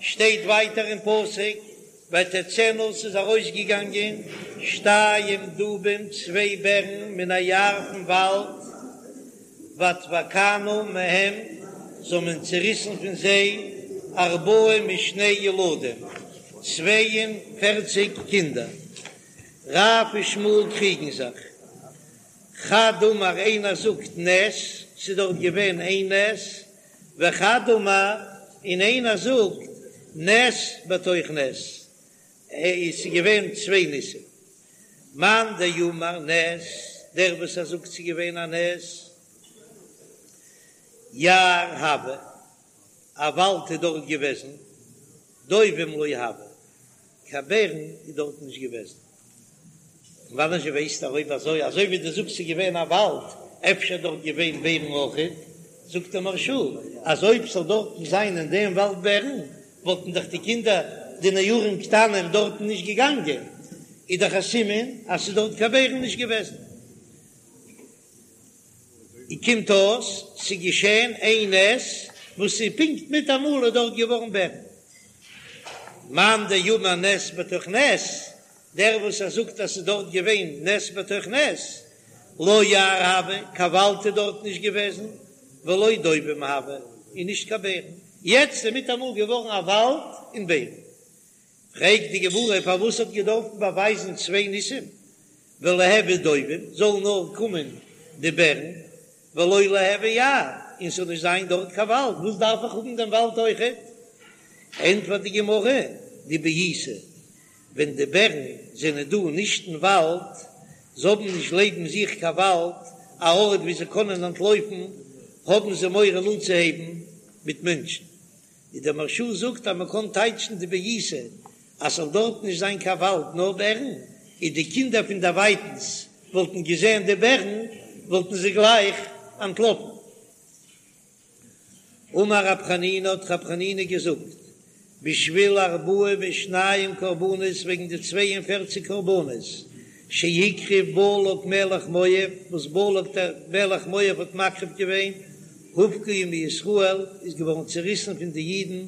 שטייט ווייטער אין פסוק, ותצאנה ס'איז ארויסגעגאנגען שתיים דובים צוויי בערן מן היער פון וואלד, ותבקענה מהם זיי האבן צעריסן פון זיי ארבעים ושני ילדים, 42 קינדער. רב ושמואל קריגן זיך. חד אמר איינער זאגט נס, ס'איז דארט געווען איין נס, וחד אמר און איינער זאגט נס בתוך נס, עס איז געווען צוויי ניסים. מאן דאמר נס, דער וואס ער זאגט ס'איז געווען א נס, יער הוה, א וואלד איז דארט געוועזן, דובים לא הוה, קיין בערן איז דארט נישט געוועזן. פון וואנען זשע ווייסטו אויב אזוי, אזוי ווי דו זאגסט ס'איז געווען א וואלד, אפשר דארט געווען בערן אויכעט, זאגט דער מהרש"א אז אויב ס'זאל דארטן זיין אין דעם וואלד בערן, וואלטן דאך די קינדער די נערים קטנים דארטן נישט געגאנגען, איז דאך א סימן אז ס'איז דארט קיין בערן נישט געוועזן. און קומט אויס ס'איז געשען איין נס וואס איז פונקט מיטאמאל איז דארט געווארן בערן. מאן דאמר נס בתוך נס, דער וואס ער זאגט אז ס'איז דארט געווען נס בתוך נס, לא יער הוה, קיין וואלד איז דארט נישט געוועזן, ולא דובים הוה, און נישט קיין בערן. יעצט איז מיטאמאל געווארן א וואלד און בערן. פרעגט די גמרא פארוואס האט געדארפט באווייזן צוויי ניסים, וליהוו דובים, זאלן נאר קומען די בערן, ולא ליהוי יער, און ס'זאל נישט זיין דארט קיין וואלד, וואס דארף איך האבן דעם וואלד אויכעט? ענטפערט די גמרא, דבעיתי, ווען די בערן זענען דא נישט אין וואלד, זיי האבן נישט לעבן זיך קיין וואלד, א ארט ווי זיי קענען אנטלויפן, האבן זיי מורא אנצוהייבן מיט מענטשן. און דער מהרש"א זאגט אז מ'קען טייטשן דבעיתי אז ס'זאל דארט נישט זיין קיין וואלד נאר בערן, און די קינדער פון דערווייטנס וואלטן געזען די בערן וואלטן זיי גלייך אנטלאפן. אמר רב חנינא האט רב חנינא געזאגט, בשביל ארבעים ושניים קרבנות וועגן די 42 קרבנות שהקריב בלק מלך מואב וואס בלק דער מלך מואב האט מקריב געווען, הובקעו מישראל איז געווארן צעריסן פון די אידן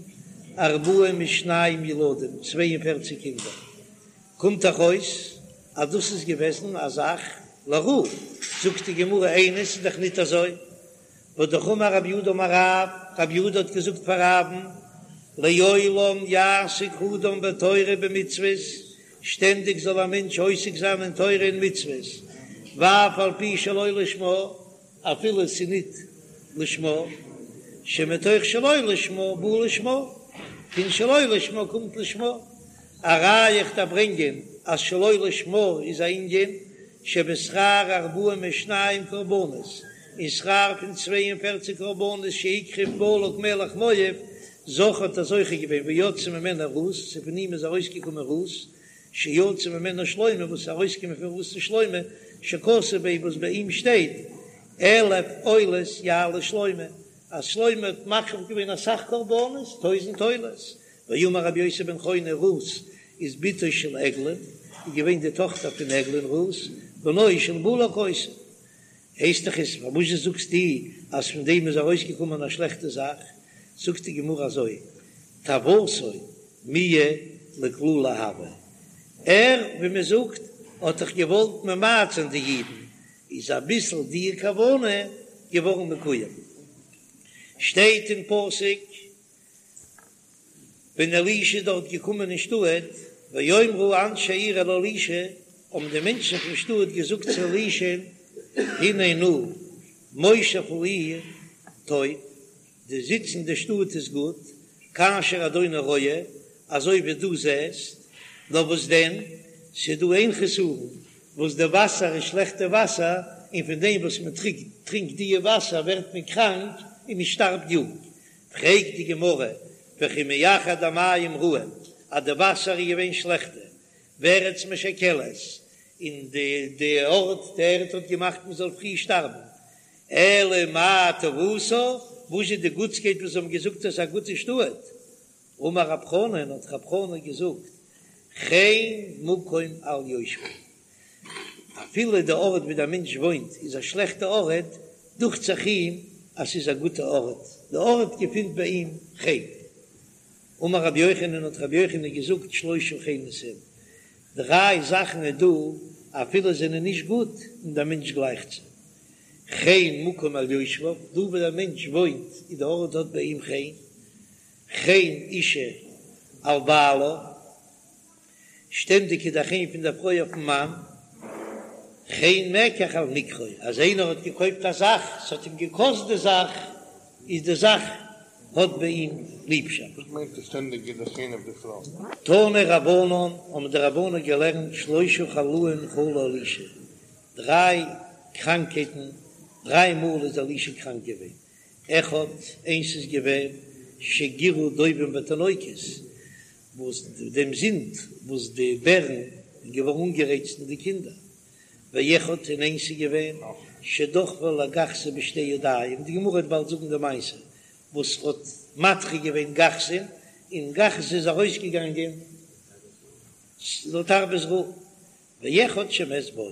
ארבעים ושניים ילדים, 42 קינדער, קומט דאך אויס אז דאס איז געוועזן א זאך לרעה, זאגט די גמרא איני ס'איז דאך ניט אזוי, והאמר רב יהודה אמר רב, רב יהודה האט געזאגט פאר רב'ן, לעולם יעסוק אדם בתורה ובמצוות, שטענדיג זאל א מענטש עוסק זיין אין תורה און מצוות, ואף על פי שלא לשמה, אפילו עס איז ניט לשמה, שמתוך שלא לשמה בא לשמה, פון שלא לשמה קומט לשמה, א ראיה איך דארף ברענגען אז שלא לשמה איז א ענין שבשכר ארבעים ושניים קרבנות, אין שכר פון 42 קרבנות שהקריב בלק מלך מואב, זכה האט ער זוכה געווען ויצאה ממנו רות, ס'איז פון אים איז ארויסגעקומען רות, שיצא ממנה שלמה, וואס איז ארויסגעקומען פון רות'ן שלמה, שכתוב ביה וואס ביי אים שטייט, אלף עולות יעלה שלמה, אז שלמה האט מקריב געווען אסאך קרבנות, טויזנט עולות, ואמר רבי יוסי בן חוני רות איז בתו של עגלון, איז געווען די טאכטער פון עגלון רות, בנו של בלק היתה. הייסט דאך עס, פארוואס זאגסטו אז פון דעם איז ארויסגעקומען א שלעכטע זאך? זאגט די גמרא אזוי, תאוותו מיהא לקללה הוה, ער, ווי מען זאגט, האט דאך געוואלט ממעט זיין די אידן, איז אביסל די כוונה געווארן מקוים. שטייט אין פסוק, ווען אלישע איז דארט געקומען אין שטאט, ויאמרו אנשי העיר אל אלישע, האבן די מענטשן פון שטאט געזאגט צו אלישע'ן, הנה נא, מושב העיר טוב, די זיץ אין די שטאט איז גוט, כאשר אדוני רואה, אזוי ווי דו זעסט, נאר וואס דען, ס'איז דא איין חסרון, וואס די וואסער איז שלעכטע וואסער, און פון דעם וואס מען טרינקט דיע וואסער ווערט מען קראנק און מען שטארבט יונג. פרעגט די גמרא, וכי מאחר דהמים רעים, אז די וואסער איז געווען שלעכטע, וארץ משכלת, און די די ארט די ערד האט געמאכט מען זאל פרי שטארבן, אלא מאי טובתה, וואס איז די גוטסקייט וואס זיי האבן געזאגט אז ס'איז א גוטע שטאט? אמר רב חנן, האט רב חנן געזאגט, חן מקום על יושביו, אפילו די ארט ווי דער מענטש וואוינט איז א שלעכטע ארט, דוכט זיך אים אז ס'איז א גוטע ארט, די ארט געפינט ביי אים חן. אמר רבי יוחנן האט רבי יוחנן געזאגט שלושה חנות הן, דריי זאכן איז דא אפילו זענען נישט גוט און דער מענטש גלייכט זיי, חן מקום על יושביו, דא וואו דער מענטש וואוינט איז די ארט האט ביי אים חן, חן אישה על בעלה, שטענדיג איז דער חן פון דער פרוי אויפן מאן, חן מקח על מקחו, אז איינער האט געקויפט א זאך, ס'האט אים געקאסט די זאך, איז די זאך האט ביי אים ליבשאפט. וואס מיינט עס שטענדיג איז דער חן אויף די פרוי? תנו רבנן, האבן די רבנן געלערנט שלושה חלאים חלה אלישע, דריי קראנקייטן, דריי מאל איז אלישע קראנק געווען, אחד, איינס איז געווען שגירו דובים בתינוקות, וואס דעם זינד וואס די בערן איז געווארן אנגערייצט אין די קינדער, ואחד און איינס איז געווען שדחפו לגחזי בשתי ידיים, די גמרא וועט באלד זאגן די מעשה וואס האט מדחה געווען גחזי'ן, און גחזי איז ארויסגעגאנגען לתרבות רעה. ואחד שמת בו,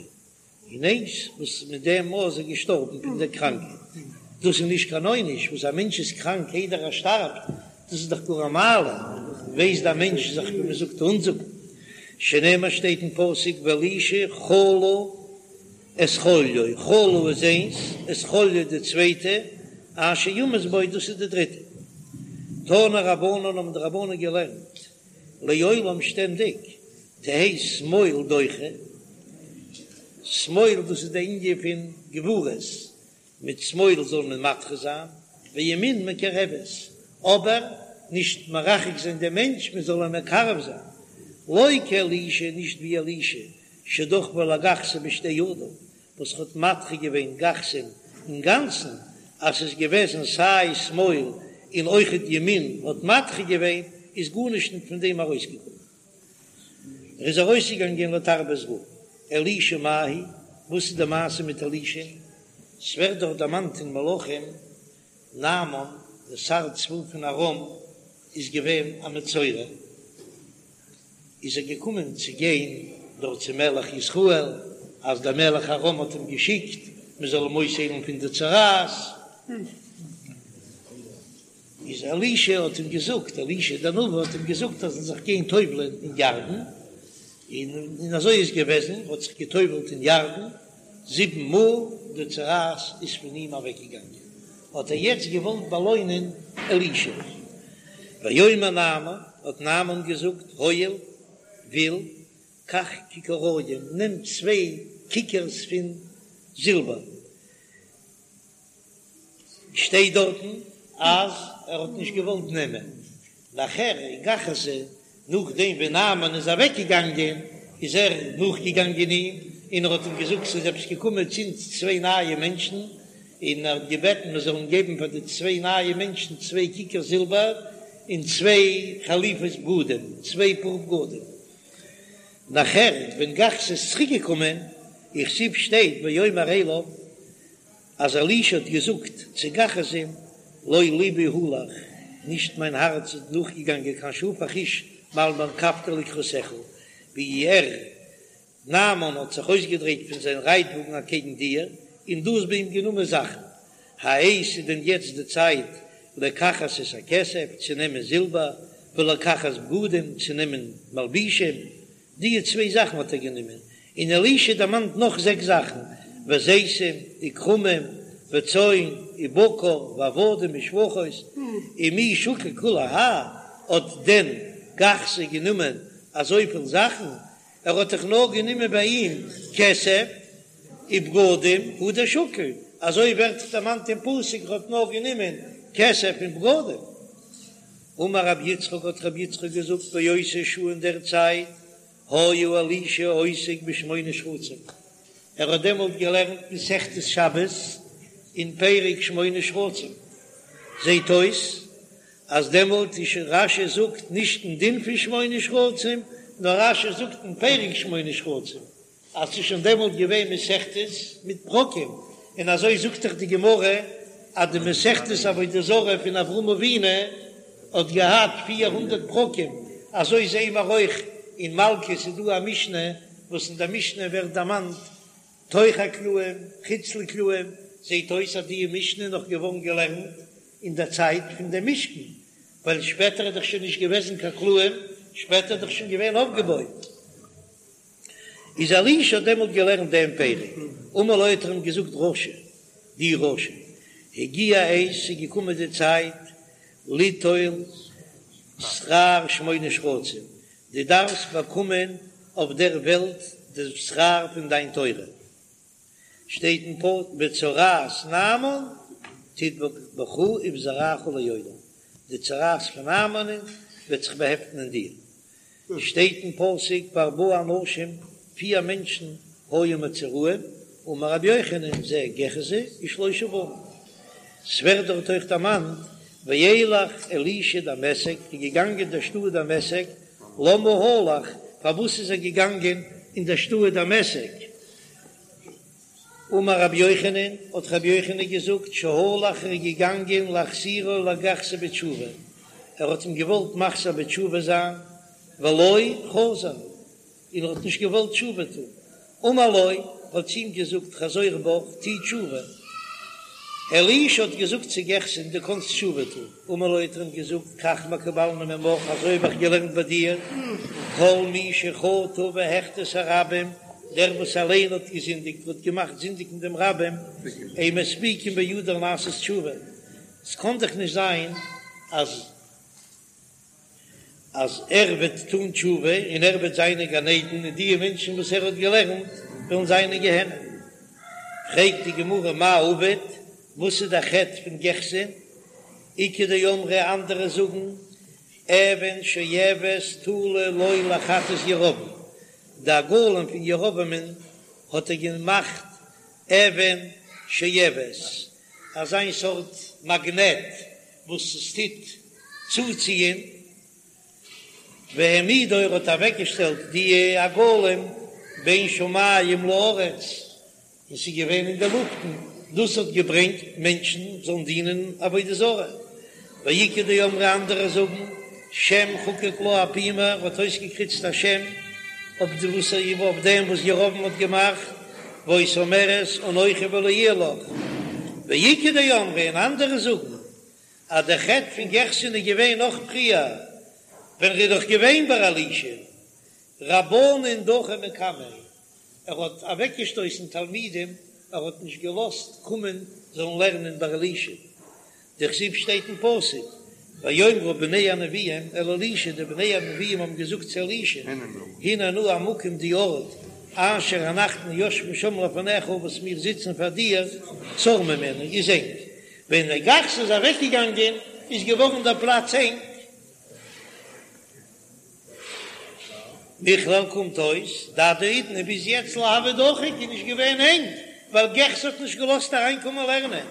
און איינס וואס מיט דעם מאל איז ער געשטארבן פון דער קראנקייט, דאס איז נישט קיין עונש וואס א מענטש איז קראנק איידער ער שטארבט, דאס איז דאך גאר א מעלה, ווייסט דער מענטש זיך ווי מען זאגט אנזאגן, שנאמר שטייט אין פסוק ואלישע חלה את חוליו, חלה איז איינס, את חוליו די צווייטע, אשר ימות בו דאס איז די דריטע. תנו רבנן האבן די רבנן געלערנט לעולם שטענדיג תהא שמאל דוחה, שמאל דאס איז די ענין פון גבורות, מיט שמאל זאל מען מדחה זיין, וימין מקרבת, אבער נישט מרחק זיין דעם מענטש, מען זאל אים מקרב זיין, לא כאלישע נישט ווי אלישע שדחפו לגחזי בשתי ידיו, וואס האט מדחה געווען גחזי'ן אינגאנצן, אז ס'איז געוועזן סיי שמאל און אויכעט ימין האט מדחה געווען, איז גארנישט ניט פון דעם ארויסגעקומען. ער איז ארויסגעגאנגען לתרבות רעה. אלישע מאי היא, וואס איז די מעשה מיט אלישע? ס'ווערט דאך דערמאנט אין מלכים, נעמן דער שר צבא פון ארם איז געווען א מצורע, איז ער געקומען צו גיין דארט צום מלך ישראל, אז דער מלך ארם האט אים געשיקט מען זאל אים אויסהיילן פון די צרעת, איז אלישע האט אים געזאגט, אלישע דער נביא האט אים געזאגט אז ער זאל זיך גיין טובל'ען אין ירדן, און אזוי איז געוועזן, ער האט זיך געטובל'ט אין ירדן זיבן מאל, די צרעת איז פון אים אוועקגעגאנגען, האט ער יעצט געוואלט באלוינען אלישע. ויאמר נעמן, האט נעמן געזאגט, הואיל, וויל, קח ככרים, נעם צוויי כיכרס פון זילבער. שטייט דארטן אז ער האט נישט געוואלט נעמען, נאכער גחזי, נאכדעם ווען נעמן איז אוועק געגאנגען איז ער נאכגעגאנגען אים און ער האט אים געזאגט ס'איז עפעס געקומען צו אונז צוויי נייע מענטשן, און ער האט געבעטן מען זאל אים געבן פאר די צוויי נייע מענטשן צוויי כיכר זילבער און צוויי חליפות בגדים, צוויי פאר בגדים. נאכער ווען גחזי איז צוריק געקומען, וכתיב שטייט ויאמר אליו, אז אלישע האט געזאגט צו גחזי'ן, לא לבי הלך, נישט מיין הארץ איז נאכגעגאנגען כאשר הפך איש מעל מרכבתו לקראתך, ווי ער, נעמן, האט זיך אויסגעדרייט פון זיין רייטוואגן אקעגן דיר, און דו האסט ביי אים גענומען זאכן. העת איז דען יעצט די צייט לקחת את הכסף, צו נעמען זילבער, ולקחת בגדים, צו נעמען מלבישים? די צוויי זאכן האט ער גענומען, און אלישע דערמאנט נאך זעקס זאכן, וזיתים, וכרמים, וצאן, ובקר, ועבדים, ושפחות, ומי שקיל כולי האי, האט דען גחזי גענומען אזויפיל זאכן? ער האט דאך נאר גענומען ביי אים כסף ובגדים, הוא דשקיל, אזוי ווערט דאך דערמאנט אין פסוק, ער האט נאר גענומען כסף און בגדים. אמר רבי יצחק האט רבי יצחק געזאגט באותה שעה אין דער צייט היה אלישע עוסק בשמונה שרצים, ער האט דעמאלט געלערנט מסכת שבת אין פרק שמונה שרצים, זעט אויס אז דעמאלט איז שוין רש"י זאגט נישט אין דין פון שמונה שרצים, נאר רש"י זאגט אין פרק שמונה שרצים, אז ס'איז שוין דעמאלט געווען מסכתות מיט פרקים, און אזוי זאגט דאך די גמרא אז די מסכת עבודה זרה פון אברהם אבינו האט געהאט 400 פרקים, אזוי זעהן מיר אויך אין מלקות איז דא א משנה וואס אין די משנה ווערט דערמאנט תוך הקלעים חוץ לקלעים, זעהט אויס אז די משנה איז נאך געווארן געלערנט אין דער צייט פון דעם משכן. ווייל שפעטער איז דאך שוין נישט געוועזן קיין קלעים, שפעטער איז דאך שוין געווען אויפגעבויט. איז אלישע האט דעמאלט געלערנט דעם פרק, אמר לו האט ער אים געזאגט רשע, דו רשע, הגיע העת, ס'איז געקומען די צייט, ליטול שכר שמונה שרצים, דו דארפסט באקומען אויף דער וועלט די שכר פון דיין תורה, שטייט אין פסוק וצרעת נעמן תדבק בך ובזרעך לעולם, די צרעת פון נעמן'ען וועט זיך באהעפטן אין דיר, שטייט אין פסוק וארבעה אנשים, פיר מענטשן היו מצורעים, אמר רבי יוחנן זה גחזי ושלושה בניו. ס'ווערט דארט אויך דערמאנט וילך אלישע דמשק, איז געגאנגען אין דער שטאט דמשק, למה הלך, פארוואס איז ער געגאנגען אין דער שטאט דמשק? אמר רבי יוחנן, האט רבי יוחנן געזאגט, שהלך ער איז געגאנגען להחזירו לגחזי בתשובה, ער האט אים געוואלט מחזיר בתשובה זיין, ולא חזר, און ער האט נישט געוואלט תשובה טון, אמר לו, האט צו אים געזאגט, חזור בך, טו תשובה. אלישע האט געזאגט צו גחזי'ן, דו קאנסט תשובה טון. אמר לו, האט ער אים געזאגט, כך מקובלני ממך, אזוי האב איך געלערנט ביי דיר, כל מי שחטא והחטיא את הרבים, דער וואס אליין האט געזינדיגט, האט געמאכט זינדיגן דעם רבים, אין מספיקין בידו לעשות תשובה. עס קאן דאך נישט זיין אז. אז ער וועט טון תשובה און ער וועט זיין אין גן עדן און די מענטשן וואס ער האט געלערנט וועלן זיין אין גיהנום. פרעגט די גמרא מאי עביד, וואס איז דער חטא פון גחזי'ן? איכא דאמרי אנדערע זאגן אבן שואבת תלה לו לחטאת ירבעם, די עגלים פון ירבעמ'ן האט ער געמאכט אבן שואבת, אזיין סארט מאגנעט וואס עס טוט צוציען, והעמידו ער האט אוועקגעשטעלט די עגלים בין שמים לארץ, און ס'איז געווען אין די לופטן, דאס האט געברענגט מענטשן זאלן דינען עבודה זרה, ואיכא דאמרי אנדערע זאגן, שם חקק לה אפומיה, ער האט אויסגעקריצט א שם אויף די וואס אויף דעם וואס ירבעם האט געמאכט, והיתה אומרת אנכי ולא יהיה לך, ואיכא דאמרי און אנדערע זאגן אז דער חטא פון גחזי'ן איז געווען נאך פריער ווען ער איז דאך געווען ביי אלישע רבנן דחי מקמיה, ער האט אוועקגעשטויסן תלמידים, ער האט נישט געלאזט קומען זאלן לערנען ביי אלישע, דכתיב שטייט אין פסוק, ויאמרו בני הנביאים אל אלישע, די בני הנביאים האבן געזאגט צו אלישע, הנה נא המקום די ארט אשר אנחנו יושבים שם לפניך וואס מיר זיצן פאר דיר, צר ממנו, איז ענג. ווען דער גחזי איז אוועקגעגאנגען איז געווארן דער פלאץ ענג. מכלל קומט אויס דעד האידנא ביז יעצט לא הוה דחיק איז נישט געווען ענג ווייל גחזי האט נישט געלאזט אריינקומען לערנען.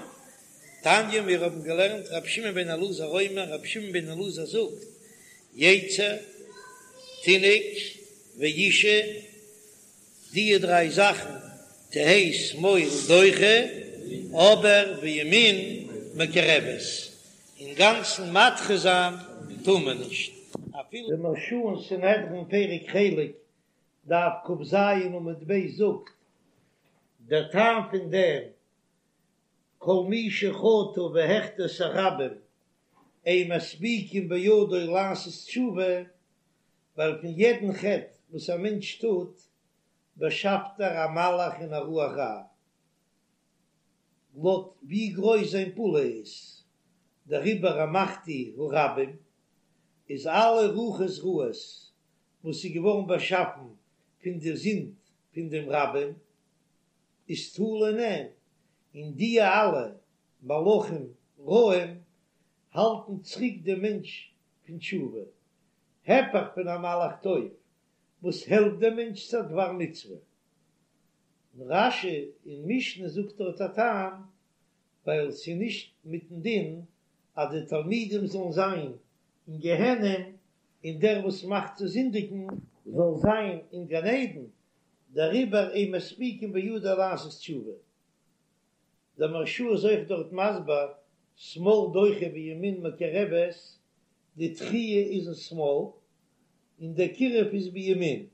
תניא מיר האבן געלערנט רבי שמעון בן אלעזר אומר רבי שמעון בן אלעזר זאגט יצר תינוק ואישה די דריי זאכן תהא שמאל דוחה אבער וימין מקרבת אינגאנצן מדחה זיין טאר מען נישט אפילו. די מהרש"א אין סנהדרין פרק חלק דף כ"ז עמוד ב' זאגט דער טעם פון דעם כל מי שחטא והחטיא את הרבים אין מספיקין בידו לעשות תשובה, ווייל פון יעדן חטא וואס א מענטש טוט באשאפט ער א מלאך און א רוח רעה, לויט ווי גרויס זיין פעולה איז, דעריבער המחטיא הרבים איז אלע רוחות רעות וואס איז געווארן באשאפן פון די זינד פון דעם רבים, איז תלוי אין אים, און די אלע מלאכים רעים האלטן צוריק דעם מענטש פון תשובה, הפך פון א מלאך טוב וואס העלפט דעם מענטש צו א דבר מצוה. און רש"י אין משנה זאגט דארט א טעם, ווייל ס'איז נישט מיטן דין אז די תלמידים זאלן זיין אין גיהנום און דער וואס מאכט צו זינדיגן זאל זיין אין גן עדן, דעריבער אין מספיקין בידו לעשות תשובה. דער מהרש"א איז אויך דארט מסביר, שמאל דוחה וימין מקרבת, די דחיה איז אין שמאל און דער קירוב איז בימין,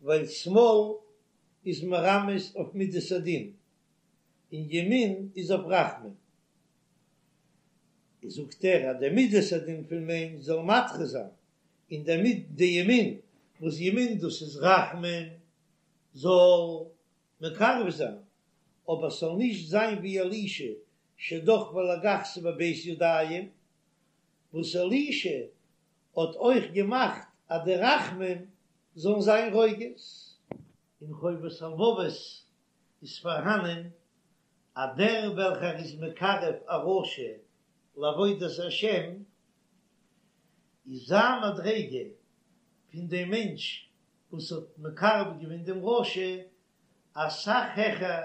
ווייל שמאל איז מרמז אויף מידת הדין און ימין איז אויף רחמים. זאגט ער אז די מידת הדין פון מענטש זאל מדחה זיין, און די מיד די ימין, וואס ימין דאס איז רחמים, זאל מקרב זיין, אבער ס'זאל נישט זיין ווי אלישע שדחפו לגחזו בב' ידיים, וואס אלישע האט אויך געמאכט אז די רחמים זאלן זיין רוגז. אין חובת הלבבות איז פארהאנען אז דער וועלכער איז מקרב א רשע לעבודת השם, איז זיין מדריגה פון דעם מענטש וואס האט מקרב געווען דעם רשע אסאך העכער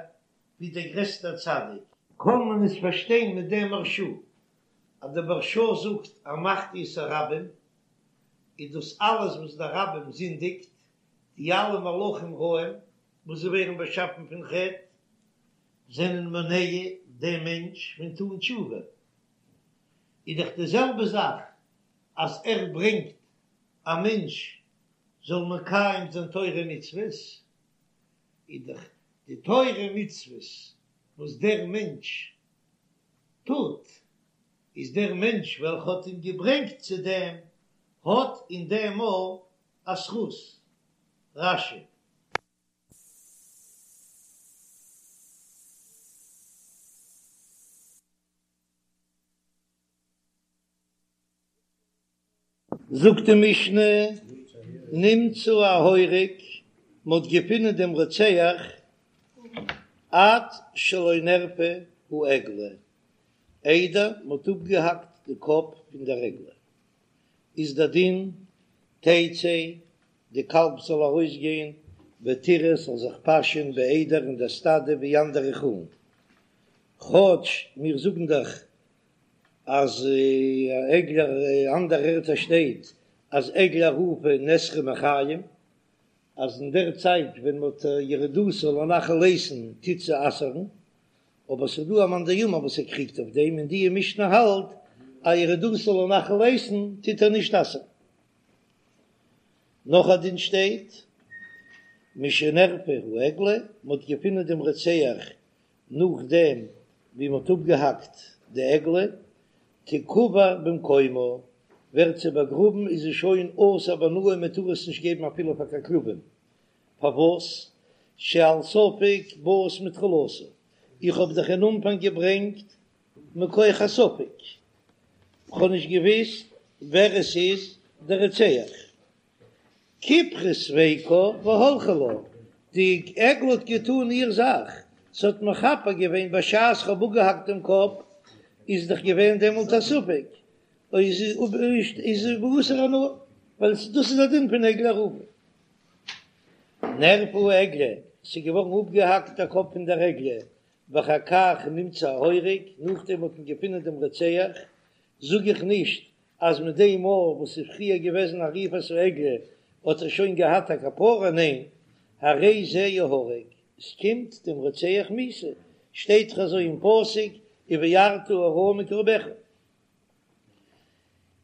ווי דער גרעסטער צדיק. קען מען עס פארשטיין מיט דעם מהרש"א, אז דער מהרש"א זאגט המחטיא את הרבים, איז דאס אלעס וואס דער רבים זינדיגט, די אלע מלאכים רעים וואס זיי ווערן באשאפן פון חטא, זענען מונע דעם מענטש פון טון תשובה, איז דאך די זעלבע זאך אז ער ברענגט א מענטש זאל מקיים זיין תורה ומצוות, איז דאך די תורה ומצוות וואס דער מענטש טוט, איז דער מענטש וועלכע האט אים געברענגט צו דעם, האט אין דעם אויך א זכות. רש"י. זאגט די משנה, נמצא ההורג, מען האט געפונען דעם רוצח, עד שלא נערפה העגלה, איידער מען האט אפגעהאקט די קאפ פון דער עגלה, איז דער דין, תצא, די קאלב זאל ארויסגיין, ותרעה זאל זיך פאשען בעדר אין דער סטאדע ווי אנדערע חולין, כאטש מיר זאגן דאך אז עגלה אנדערע ערטער שטייט אז עגלה ערופה נאסרה מחיים, אז אין דער צייט ווען מ'האט ירידתה לנחל איתן טוט זי אסר'ן, אבער ס'איז דא א מאן דאמר וואס ער קריגט אויף דעם און די משנה האלט אז ירידתה לנחל איתן טוט ער נישט אסר'ן. נאך א דין שטייט משנערפה העגלה, מ'האט געפונען דעם רוצח נאכדעם ווי מ'האט אפגעהאקט די עגלה, תקבר במקומה, ווערט זי באגראבן איז זי שוין אסור בהנאה מען טאר עס נישט געבן אפילו פאר קיין כלבים, פארוואס? שעל ספק באת מתחילתה, איך האב דאך אין אנפאנג געברענגט מכח הספק, כ'האב נישט געוויסט ווער עס איז דער רוצח. כיפרה ספיקה והלכה לה, די עגלה האט געטאן איר זאך, ס'האט מכפר געווען בשעת כ'האב אפגעהאקט דעם קאפ, איז דאך געווען דעמאלט א ספק, איז איז באסור הנאה, ווייל דאס איז א דין פון עגלה ערופה. נערפה העגלה, ס'איז געווארן אפגעהאקט דער קאפ פון דער עגלה, ואחר כך נמצא ההורג, נאכדעם האט מען געפונען דעם רוצח, זאג איך נישט אז מיט דעם מאל וואס איז פריער געוועזן עריפת העגלה האט ער שוין געהאט א כפרה, ניין, הרי זה יהרג, עס קומט דעם רוצח מיתה, שטייט דאך אזוי אין פסוק ובערת הרע מקרבך.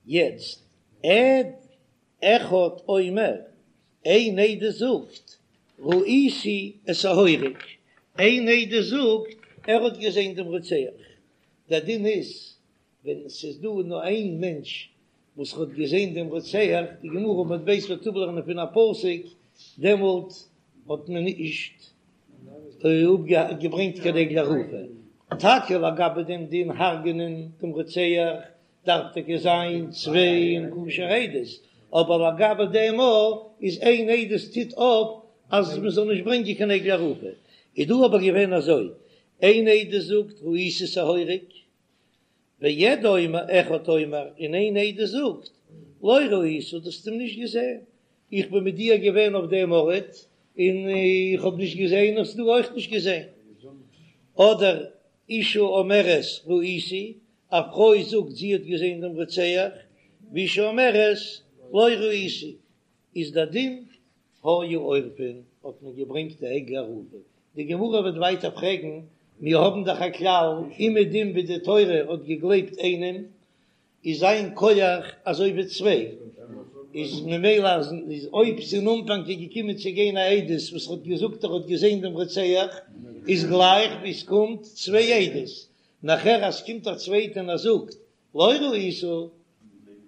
יעצט עד אחד אומר, איין עדות זאגט ראיתי את ההורג, איין עדות זאגט ער האט געזען דעם רוצח, דער דין איז ווען ס'איז דא נאר איין מענטש וואס האט געזען דעם רוצח, די גמרא עמוד ב' וועט אפלערנען פון א פסוק, דעמאלט האט מען נישט געברענגט קיין עגלה ערופה. טאקע לגבי דעם דין הרג'נען דעם רוצח דארף טאקע זיין צוויי און כשר עדות, אבער לגבי דעם מאל איז איין עדות טוט אויף אז מען זאל נישט ברענגען קיין עגלה ערופה. איז דא אבער געווען אזוי, איין עדות זאגט ראיתי את ההורג, ועד אומר אחד אומר, און איין עדות זאגט, לא ראית, דו האסט אים נישט געזען, איך בין מיט דיר געווען אויף דעם ארט, און איך האב נישט געזען, האסט דו אויך נישט געזען. אדער אשה אומרת ראיתי, א פרוי זאגט זי האט געזען דעם רוצח, ואשה אומרת לא ראיתי, איז דער דין היו עורפין, האט מען געברענגט די עגלה ערופה, די גמרא וועט ווייטער פרעגן, מיר האבן דאך א כלל, אומעדום ווי די תורה האט געגלייבט איינעם, איז זיין כח אזוי ווי צוויי, איז ממילא אז אויב ס'אין אנפאנג איז געקומען צו גיין א עדות וואס האט געזאגט ער האט געזען דעם רוצח, איז גלייך ווי ס'קומט צוויי עדות, נאכער אז ס'קומט א צווייטע און ער זאגט. לא ראית,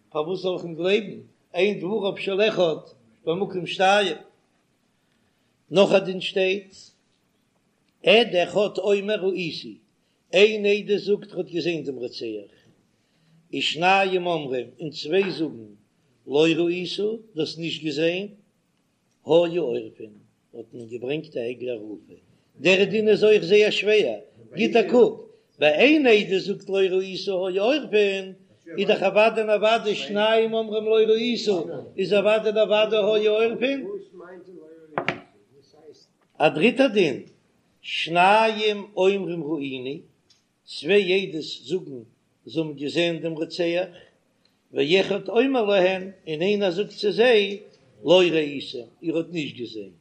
פארוואס זאל איך אים גלייבן, אין דבריו של אחד במקום שתיים. נאך א דין שטייט, עד אחד אומר ראיתי, איין עדות זאגט ער האט געזען דעם רוצח, ושניים אומרים, און צוויי זאגן לא ראית, דו האסט נישט געזען, היו עורפין, האט מען געברענגט א עגלה ערופה, דער דין איז אויך זייער שווער, גיט א קוק, ביי איין עדות זאגט לא ראית היו עורפין, איז דאך אוודאי און אוודאי שניים אומרים לא ראית, איז אוודאי און אוודאי היו עורפין. א דריטער דין, שניים אומרים ראינו, צוויי עדות זאגן זיי האבן געזען דעם רוצח, ואחד אומר להן, און איינער זאגט צו זיי, לא ראיתם, איר האט נישט געזען,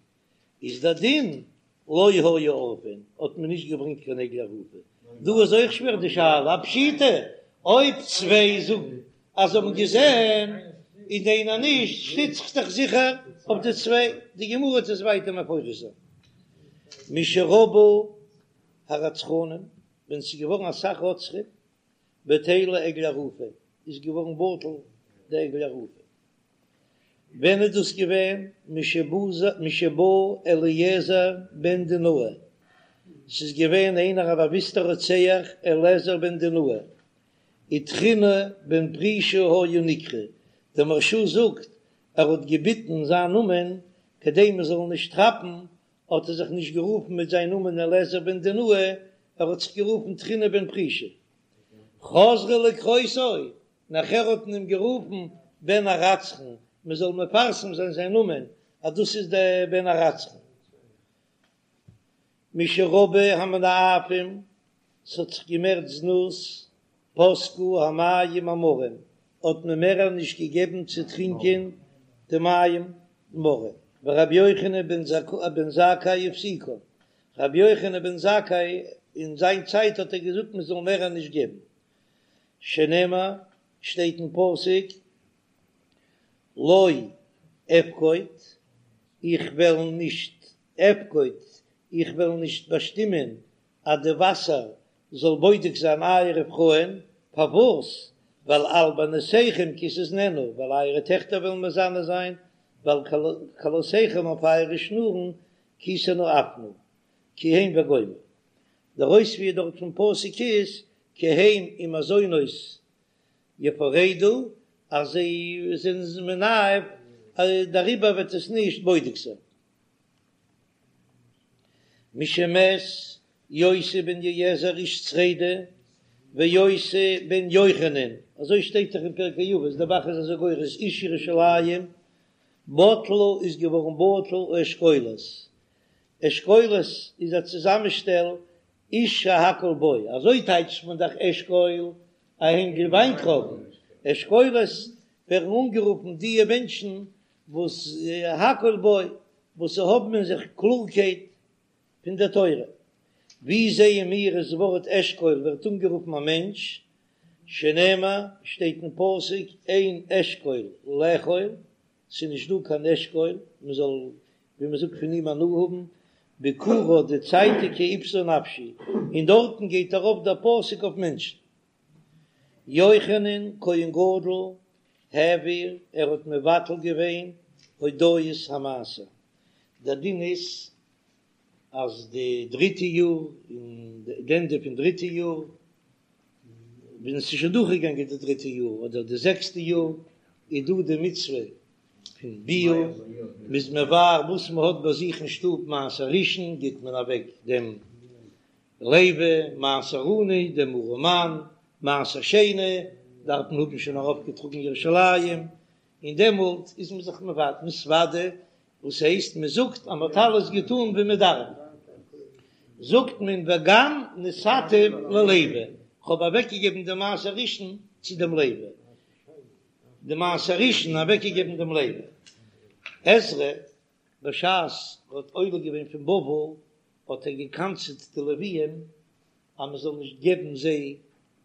איז דער דין, לא היו עורפין, האט מען נישט געברענגט קיין עגלה ערופה. דא איז אויך שווער די שאלה, א פשיטא, אויב צוויי זאגן אז זיי האבן געזען און איינער נישט, שטיצט זיך דאך זיכער אויף די צוויי, די גמרא וועט עס ווייטער מפרש זיין. משרבו הרצחנים, ווען ס'איז געווארן אסאך רוצחים, בטלה עגלה ערופה, איז געווארן בטל די עגלה ערופה. ווען איז דאס געווען? משבא אליעזר בן דינאי, ס'איז געווען איינער א באוויסטער רוצח אליעזר בן דינאי, ותחינא בן פרישא היה נקרא, דער מהרש"א זאגט ער האט געביטן זיין נאמען כדי מען זאל נישט כאפן, האט ער זיך נישט גערופן מיט זיין נאמען אליעזר בן דינאי, ער האט זיך גערופן תחינא בן פרישא. חזרו לקרותו, נאכער האט מען אים גערופן בן הרצחן, מען זאל מפרסם זיין זיין נאמען אז דאס איז דער בן הרצחן. משרבו המנאפים, ס'האט זיך געמערט זנות, פסקו המים המרים, האט מען מער נישט געגעבן צו טרינקען די מים מרים, ורבי יוחנן בן זכאי הפסיקן, רבי יוחנן בן זכאי אין זיין צייט האט ער געזאגט מען זאל מער נישט געבן, שנאמר, שטייט אין פסוק, לא אפקוד, איך וועל נישט אפקוד, איך וועל נישט באשטימען אז די וואסער זאל בודק זיין אייערע פרויען, פארוואס? ווייל על בנותיכם כי תזנינה, ווייל אייערע טעכטער וועלן מזנה זיין, ועל כלותיכם אויף אייערע שנורן כי תנאפנה, כי הם וגומר. דער אויספיר דארט פון פסוק איז כי הם עם הזונות יפרדו, אז זיי זענען מנאף, דעריבער וועט עס נישט בודק זיין. משמת יוסי בן יועזר איש צרידה ויוסי בן יוחנן, אזוי שטייט דאך אין פרקי אבות, דער ב"ח איז אזוי גורס איש ירושלים, בטלו איז געווארן בטל האשכולות, אשכולות איז א צוזאמשטעל איש שהכל בו, אזוי טייטשט מען דאך אשכול א הענגל וויינטרויבן, אשכולות ווערן אנגערופן דיע מענטשן וואס הכל בו, וואס האבן אין זיך קלארקייט פון דער תורה. ווי זעען מיר אז ווארט אשכול ווערט אנגערופן א מענטש, שנאמר, שטייט אין פסוק אין אשכול לאכול, ס'איז נישט דא קיין אשכול מען זאל ווי מען זאגט פון אים הנאה האבן, ביכורה די צייטיגע אבתה נפשי, און דארטן גייט ארויף דער פסוק אויף מענטשן. יוחנן כהן גדול העביר, ער האט מבטל געווען הודאת המעשר, דער דין איז אז די דריטע יאר אין די ענדע פון דריטע יאר ווען עס איז שוין דורכגעגאנגען די דריטע יאר אדער די זעקסטע יאר איז דא די מצוה פון ביעור, מ'איז מבער וואס מען האט ביי זיך אין שטוב מעשר ראשון גיט מען אוועק דעם לוי, מעשר עני, דעם ארעמאן, מעשר שני דארף מען האבן שוין ארויפגעטראגן ירושלים, און דעמאלט איז מען זיך מתוודה, וואס הייסט מען זאגט אז מען האט אלעס געטאן ווי מען דארף, זאגט מען וגם נתתיו ללוי, כ'האב אוועקגעגעבן די מעשר ראשון צו דעם לוי, די מעשר ראשון אוועקגעגעבן דעם לוי. עזרא בשעת ער האט עולה געווען פון בבל האט ער געקנס'עט די לוויים אז מען זאל נישט געבן זיי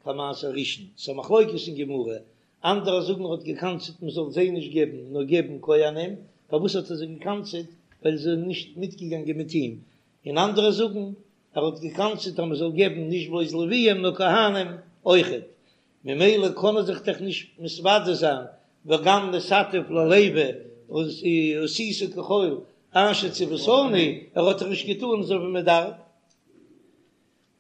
קיין מעשר ראשון, ס'איז א מחלוקת אין גמרא, אנדערע זאגן ער האט געקנס'עט מען זאל זיי נישט געבן נאר געבן כהנים, פארוואס האט ער זיי געקנס'עט? ווייל זיי זענען נישט מיטגעגאנגען מיט אים, און אנדערע זאגן ער האט געקנס'עט אז מען זאל געבן נישט בלויז לוויים נאר כהנים אויכעט. ממילא קען ער זיך דאך נישט מתוודה זיין וגם נתתיו ללוי ועשית ככל אשר צויתני, ער האט דאך נישט געטאן אזוי ווי מען דארף.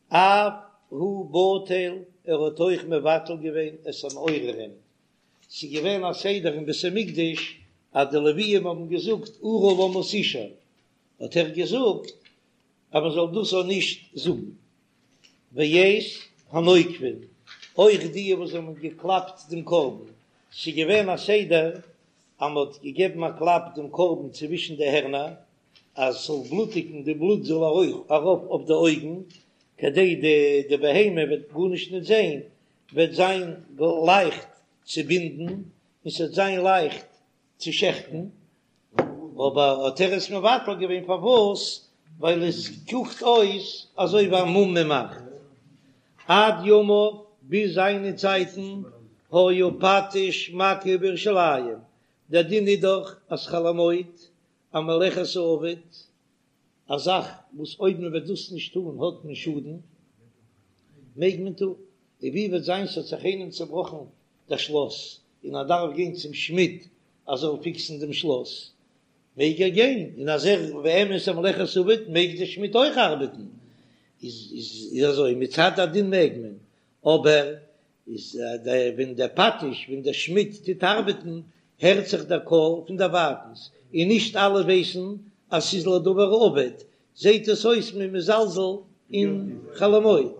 אף הוא בטל, ער האט אויך מבטל געווען את המעוררים, ס'איז געווען א סדר אין בית המקדש אז די לוויים האבן געזאגט ארה למה תשאר, האט ער געזאגט אז מען זאל דאס אויך נישט זאגן. ואת הנוקבין, אויך די וואס האבן געקלאפט דעם קרבן, ס'איז געווען א סדר אז מען האט געגעבן א קלאפ דעם קרבן צווישן די הערנער אז ס'זאל בלוטיגן, די בלוט זאל ארויף אויף די אויגן, כדי די די בהמה וועט גארנישט נישט זען, וועט זיין לייכט צו בינדן און ס'וועט זיין לייכט צו שעכטן, אבער האט ער עס מבטל געווען פארוואס? ווייל עס קוקט אויס אזוי ווי א מום מען מאכט. עד ימיו, ביז זיינע צייטן, היה פטיש מכה בירושלים, דער דין איז דאך אז חול המועד, א מלאכת האבד, א זאך וואס אויב מען וועט דאס נישט טון האט מען שאדן, מעג מען טון, און ווי וועט זיין ס'האט זיך איינעם צעבראכן דער שלאס און ער דארף גיין צום שמיד ער זאל פיקסן דעם שלאס, מעג ער גיין, און אז ער באמת א מלאכת האבד מעג דער שמיד אויך ארבעטן, איז איז אזוי מצד הדין מעג מען, אבער איז ווען דער פטיש ווען דער שמיד טוט ארבעטן הערט זיך דער קול פון דערווייטנס, און נישט אלע ווייסן אז ס'איז לדבר האבד, זעט עס אויס מ'איז מזלזל אין חול המועד,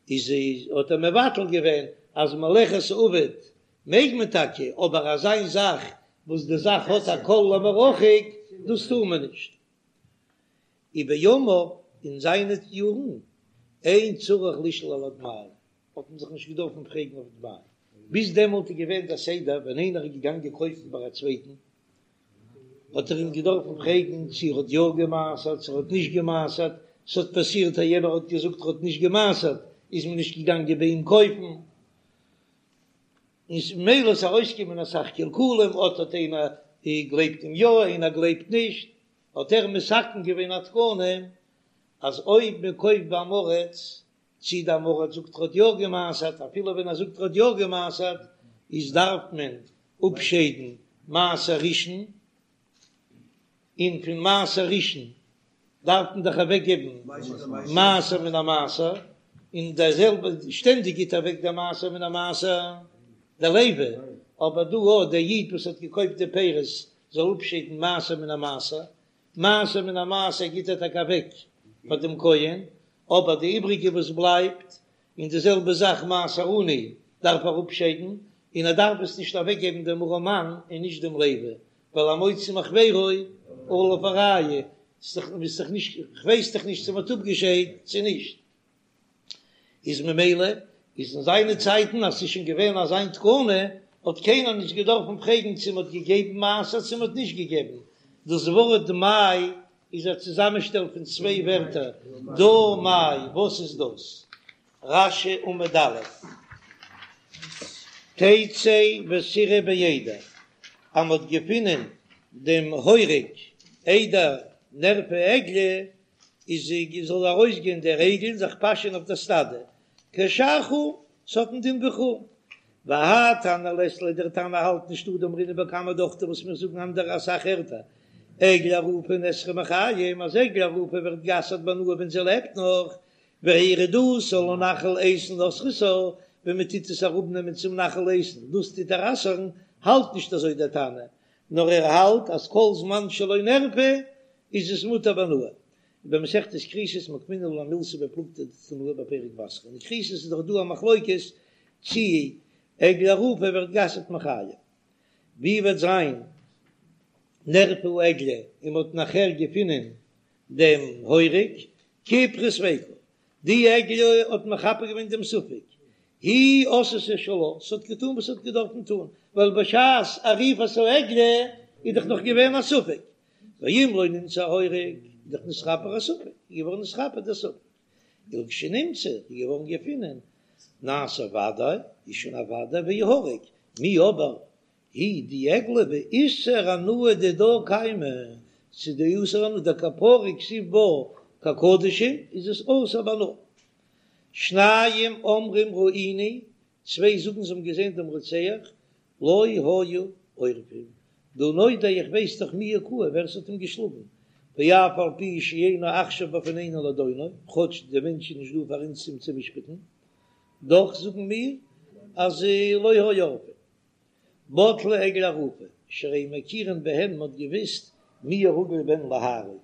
איז האט ער מבטל געווען אז מלאכת האבד מעג מען טאקע, אבער אזא זאך וואס די זאך האט א קול למרחוק דאס טאר מען נישט. ובימיו אין זיינע יארן אין צריך לשאול על הדמאי האט מען זיך נישט געדארפן פרעגן אויף דמאי, ביז דעמאלט איז געווען דער סדר ווען איינער איז געגאנגען קויפן ביי א צווייטן האט ער אים געדארפן פרעגן צו ער האט יא גע'מעשר'ט צו ער האט נישט גע'מעשר'ט, ס'האט פאסירט אז יענער האט געזאגט ער האט נישט גע'מעשר'ט איז מען נישט געגאנגען ביי אים קויפן, און ממילא איז ארויסגעקומען אסאך קלקולים, אט האט איינער גלייבט אים יא איינער גלייבט נישט, האט ער מתקן געווען א תקנה אז אויב מען קויפט ביי עם הארץ צי דער עם הארץ זאגט ער האט יא גע'מעשר'ט, אפילו ווען ער זאגט ער האט יא גע'מעשר'ט, איז דארף מען אפשיידן מעשר ראשון, און פון מעשר ראשון דארף מען דאך אוועק געבן מעשר מן המעשר, און דער זעלבע שטענדיג גיט אוועק דער מעשר מן המעשר דער לוי, אבער דא אויך דער איד וואס האט געקויפט די פירות זאל אפשיידן מעשר מן המעשר, מעשר מן המעשר גיט ער טאקע אוועק פאר דעם כהן, אבער די איבריגע וואס בלייבט, און די זעלבע זאך מעשר עני דארף ער אפשיידן, און ער דארף עס נישט אוועקגעבן דעם ארעמאן און נישט דעם לוי, ווייל המוציא מחבירו עליו הראיה, ס'איז דאך נישט, כ'ווייס דאך נישט צו מ'האט אפגעשיידט צו נישט. איז ממילא איז אין זיינע צייטן אז ס'איז שוין געווען אזיין תקנה האט קיינער נישט געדארפן פרעגן צו מ'האט געגעבן מעשר צו מ'האט נישט געגעבן, דאס ווארט דמאי איז א צוזאמענשטעל פון צוויי ווערטער דא מאי, וואס איז דאס? רש"י עמוד א', תצא ותרעה בעדר, אז מ'האט געפונען דעם הורג איידער נערפה עגלה, איז זאל ארויסגיין דער עגל און זיך פאשען אויף דער סטאדע, כשאר חולין, ס'האט א דין ווי חולין. והאי תנא לית ליה דער תנא האלט נישט הא דאמרינן בכמה דוכתא וואס מיר זאגן אנדערע אסאך ערטער, עגלה ערופה נאסרה מחיים אז עגלה ערופה ווערט גע'אסר'ט בהנאה ווען זי לעבט נאך, והורדתה לנחל איתן אוסרתה, ווען מען טוט עס אראפנעמען צום נחל איתן דאס טוט איר אסר'ן, האלט נישט אזוי דער תנא, נאר ער האלט אז כל זמן שלא נערפה איז עס מותר בהנאה. ובמסכת כריתות מוקמינן לה מילתא בפלוגתא דתנאי בפרק בתרא. אין כריתות איז דאך דא א מחלוקת צי עגלה ערופה ווערט גע'אסר'ט מחיים. ווי וועט זיין נערפה העגלה און מ'האט נאכער געפונען דעם הורג כיפרה ספיקה. די עגלה האט מכפר געווען דעם ספק. היא עשתה שלה, ס'האט געטון וואס ס'האט געדארפן טון, ווייל בשעת עריפת העגלה איז דאך נאך געווען א ספק. ואם לא נמצא ההורג, איז דאך נתכפר הספק, איז געווארן נתכפר דער ספק. ולכשנמצא, איז געווארן געפונען, נעשה ודאי, איז שוין א ודאי ויהרג, מיהא אבער, היא די עגלה באיסור הנאה דידה קיימא, ס'איז דא איסור הנאה דכפרה כתיב בה כקדשים, איז עס אסור בהנאה. שניים אומרים ראינו. צוויי זאגן זיי האבן געזען דעם רוצח, לא היו עורפין, דהא נודע איך ווייס דאך מי הכהו ווער ס'האט אים געשלאגן, ואף על פי שאינו עכשיו בפנינו לדונו, כאטש דער מענטש איז נישט דא פאר אונז אים צו משפט'ן, דאך זאגן מיר אז לא היו עורפין. בטלה עגלה ערופה, שהרי מכירין בהן מ'האט געוויסט מי הרגיל בהן להרוג,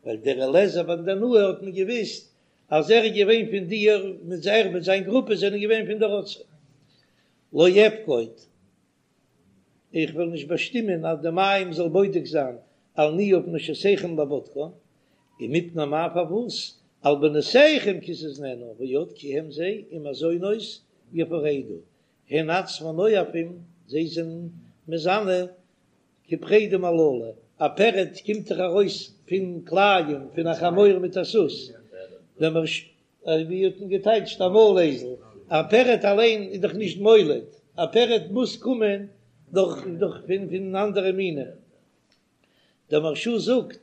ווייל דער אליעזר בן דנאי האט מען געוויסט אז ער איז געווען פון די מיט ער מיט זיין גרופע זענען געווען פון די רוצחים. לא אפקוד, איך וועל נישט באשטימען אז די מים זאל בודק זיין על ניאוף נשותיכם לבדקן, ומפני מה פארוואס על בנותיכם כי תזנינה ועוד כי הם זיי עם הזונות יפרדו, הן עצמן נואפים, זיי זענען מזנה כפרדים הללו, א פרד קומט דאך ארויס פון כלאים פון א חמור מיט א סוס, דער מהרש א ווי האט מען געטייטשט א מויל אייזל, א פרד אליין איז דאך נישט מוליד, א פרד מוז קומען דורך דורך פון פון אנדערע מינים, דער מהרש א זאגט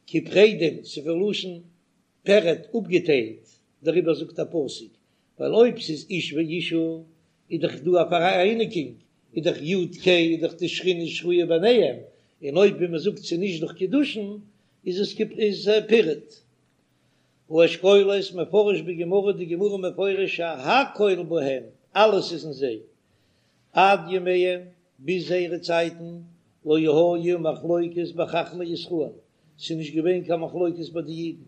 כפרדים ס'איז פון לשון פרד אפגעטיילט, דעריבער זאגט א פסוק, ווייל אויב ס'איז איש ואישה איז דאך דא א פאראייניגונג, איז דאך יו ק איז דאך די שכינה שרויה ביניהם, און אויב ווי מ'זאגט ס'איז נישט דורך קידושין איז עס איז פירוד. האשכולות מפרש בגמרא, די גמרא מפרש שהכל בהם, אלעס איז אין זיי, עד ימיהם, ביז זייערע צייטן, לא היה מחלוקת בחכמי ישראל, ס'איז נישט געווען קיין מחלוקת ביי די אידן,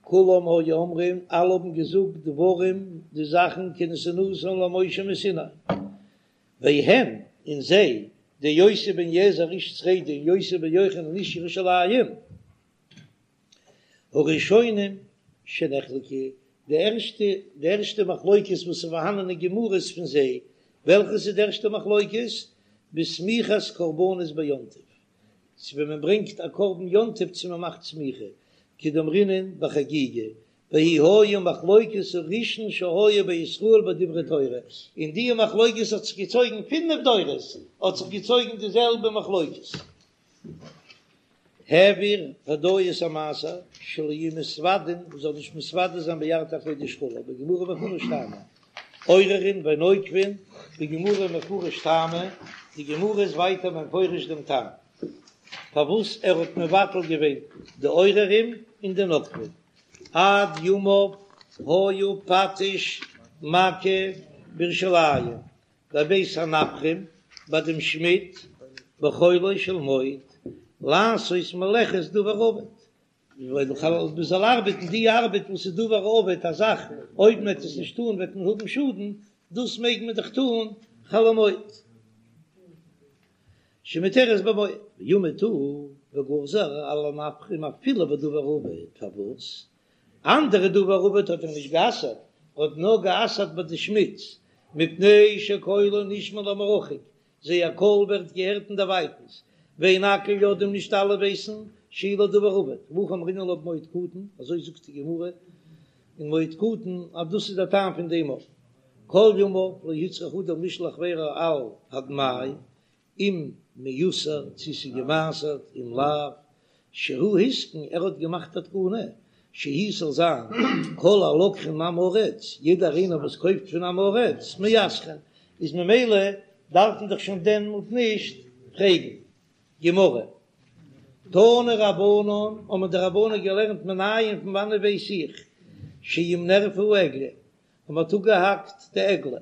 כולם היו אומרים, אלע האבן געזאגט דברים, די זאכן כנתינתן למשה מסיני, והם, און זיי, די יוסי בן יועזר איש צרידה און יוסי בן יוחנן איש ירושלים, הראשונים שנחלקו, די ערשטע, די ערשטע מחלוקת וואס איז פארהאנען אין גמרות פון זיי, וועלכעס איז די ערשטע מחלוקת? בסמיכת קרבנות ביום טוב, צו ווען מען ברענגט א קרבן יום טוב צו מען מאכט סמיכה, כדאמרינן בחגיגה, והיא היה מחלוקת הראשון שהיה בישראל בדברי תורה, און די מחלוקת האט זיך געצויגן פינף דורות האט זיך געצויגן די זעלבע מחלוקת. העביר הודאת המעשר שלא יהו מתוודין, מען זאל נישט מתוודה זיין בירכתי הקודש כו', בגמרא מפרש טעמא, עוררין ונוקבין, בגמרא מפרש טעמא, די גמרא איז ווייטער מפרש דעם טעם פארוואס ער האט מבטל געווען די עוררים און די נוקבין, עד ימיו היה פטיש מכה בירושלים, בבית הנפחים ביי דעם שמיד בחולו של מועד לעשות מלאכת דבר האבד, מען זאל ארבעטן די ארבעט וואס איז דבר האבד א זאך אויב מען וועט עס נישט טון וועט מען האבן שאדן, דאס מעג מען דאך טון חול המועד שמותרת במועד, ועמד הוא וגזר על הנפחים אפילו בדבר האבד, פארוואס אנדערע דבר האבד האט ער נישט גע'אסר'ט, ער האט נאר גע'אסר'ט ביי די שמידס, מפני שקולן נשמע למרחוק, זייער קול ווערט געהערט אין דערווייטנס, ואין הכל יודעים נישט אלע ווייסן שהוא לדבר האבד, והכי אמרינן לה במועד קטן, אזוי זאגט די גמרא אין מועד קטן אז דאס איז דער טעם פון דעם אויך, כל ימיו לא הוצרך אדם לשאול חבירו על הדמאי, אם מעושר צו ס'איז געמעשרט אם לאו שהוא התקין ער האט געמאכט א תקנה שיהא ס'זאל זיין כל הלוקחין מעם הארץ יעדער איינער וואס קויפט פון עם הארץ מעשרין איז ממילא דארף מען דאך שוין דעמאלט נישט פרעגן. גמרא, תנו רבנן האבן די רבנן געלערנט מנין פון וואנעט ווייס איך שאם נערפה העגלה אז מ'האט אפגעהאקט די עגלה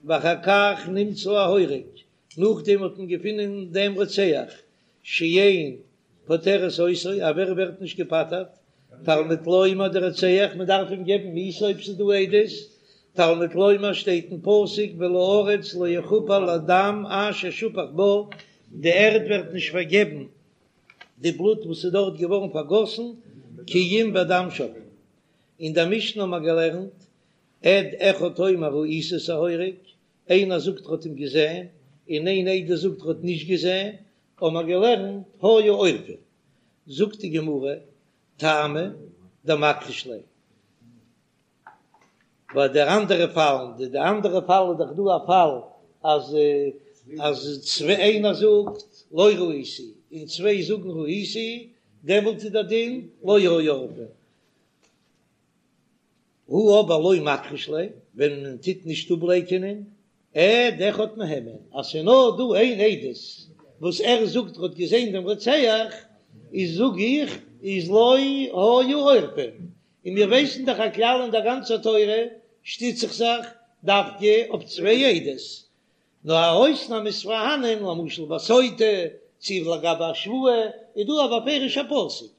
ואחר כך נמצא ההורג, נאכדעם האט מען געפונען דעם רוצח, שאין פוטרת אותו, אז ער ווערט נישט געפטר'ט, תלמוד לומר דער רוצח, מען דארף אים געבן מיתה אויב ס'איז דא עדות, תלמוד לומר שטייט אין פסוק ולארץ לא יכפר לדם אשר שפך בה, די ערד ווערט נישט פארגעבן די בלוט וואס איז דארט געווארן פארגאסן, כי אם בדם שופכו. אין דער משנה האט מען געלערנט עד אחד אומר ראיתי את ההורג, איינער זאגט ער האט אים געזען, און איין עדות זאגט ער האט נישט געזען, האבן מיר געלערנט היו עורפין, זאגט די גמרא, טעמא דמכחיש ליה. ביי די אנדערע פאלן, די די אנדערע פאל איז דאך דא א פאל אז אז צוויי איינער זאגט לא ראיתי און צוויי זאגן ראיתי, דעמאלט איז דער דין לא היו עורפין. הא אבער לא מכחיש ליה, ווען מען טוט נישט אפלייקענען. עד אחד מהימן, אז ס'איז נאר דא איין עדות וואס ער זאגט ער האט געזען דעם רוצח, איז זאג איך איז לא היו עורפין, און מיר ווייסן דאך א כלל אין דער גאנצער תורה שטיץ איך זיך דווקא אויף צוויי עדות, נאר א אויסנאם איז פארהאנען, למשל ביי סוטה, צי לגבי א שבועה, איז דא א בפירוש'ע פסוק.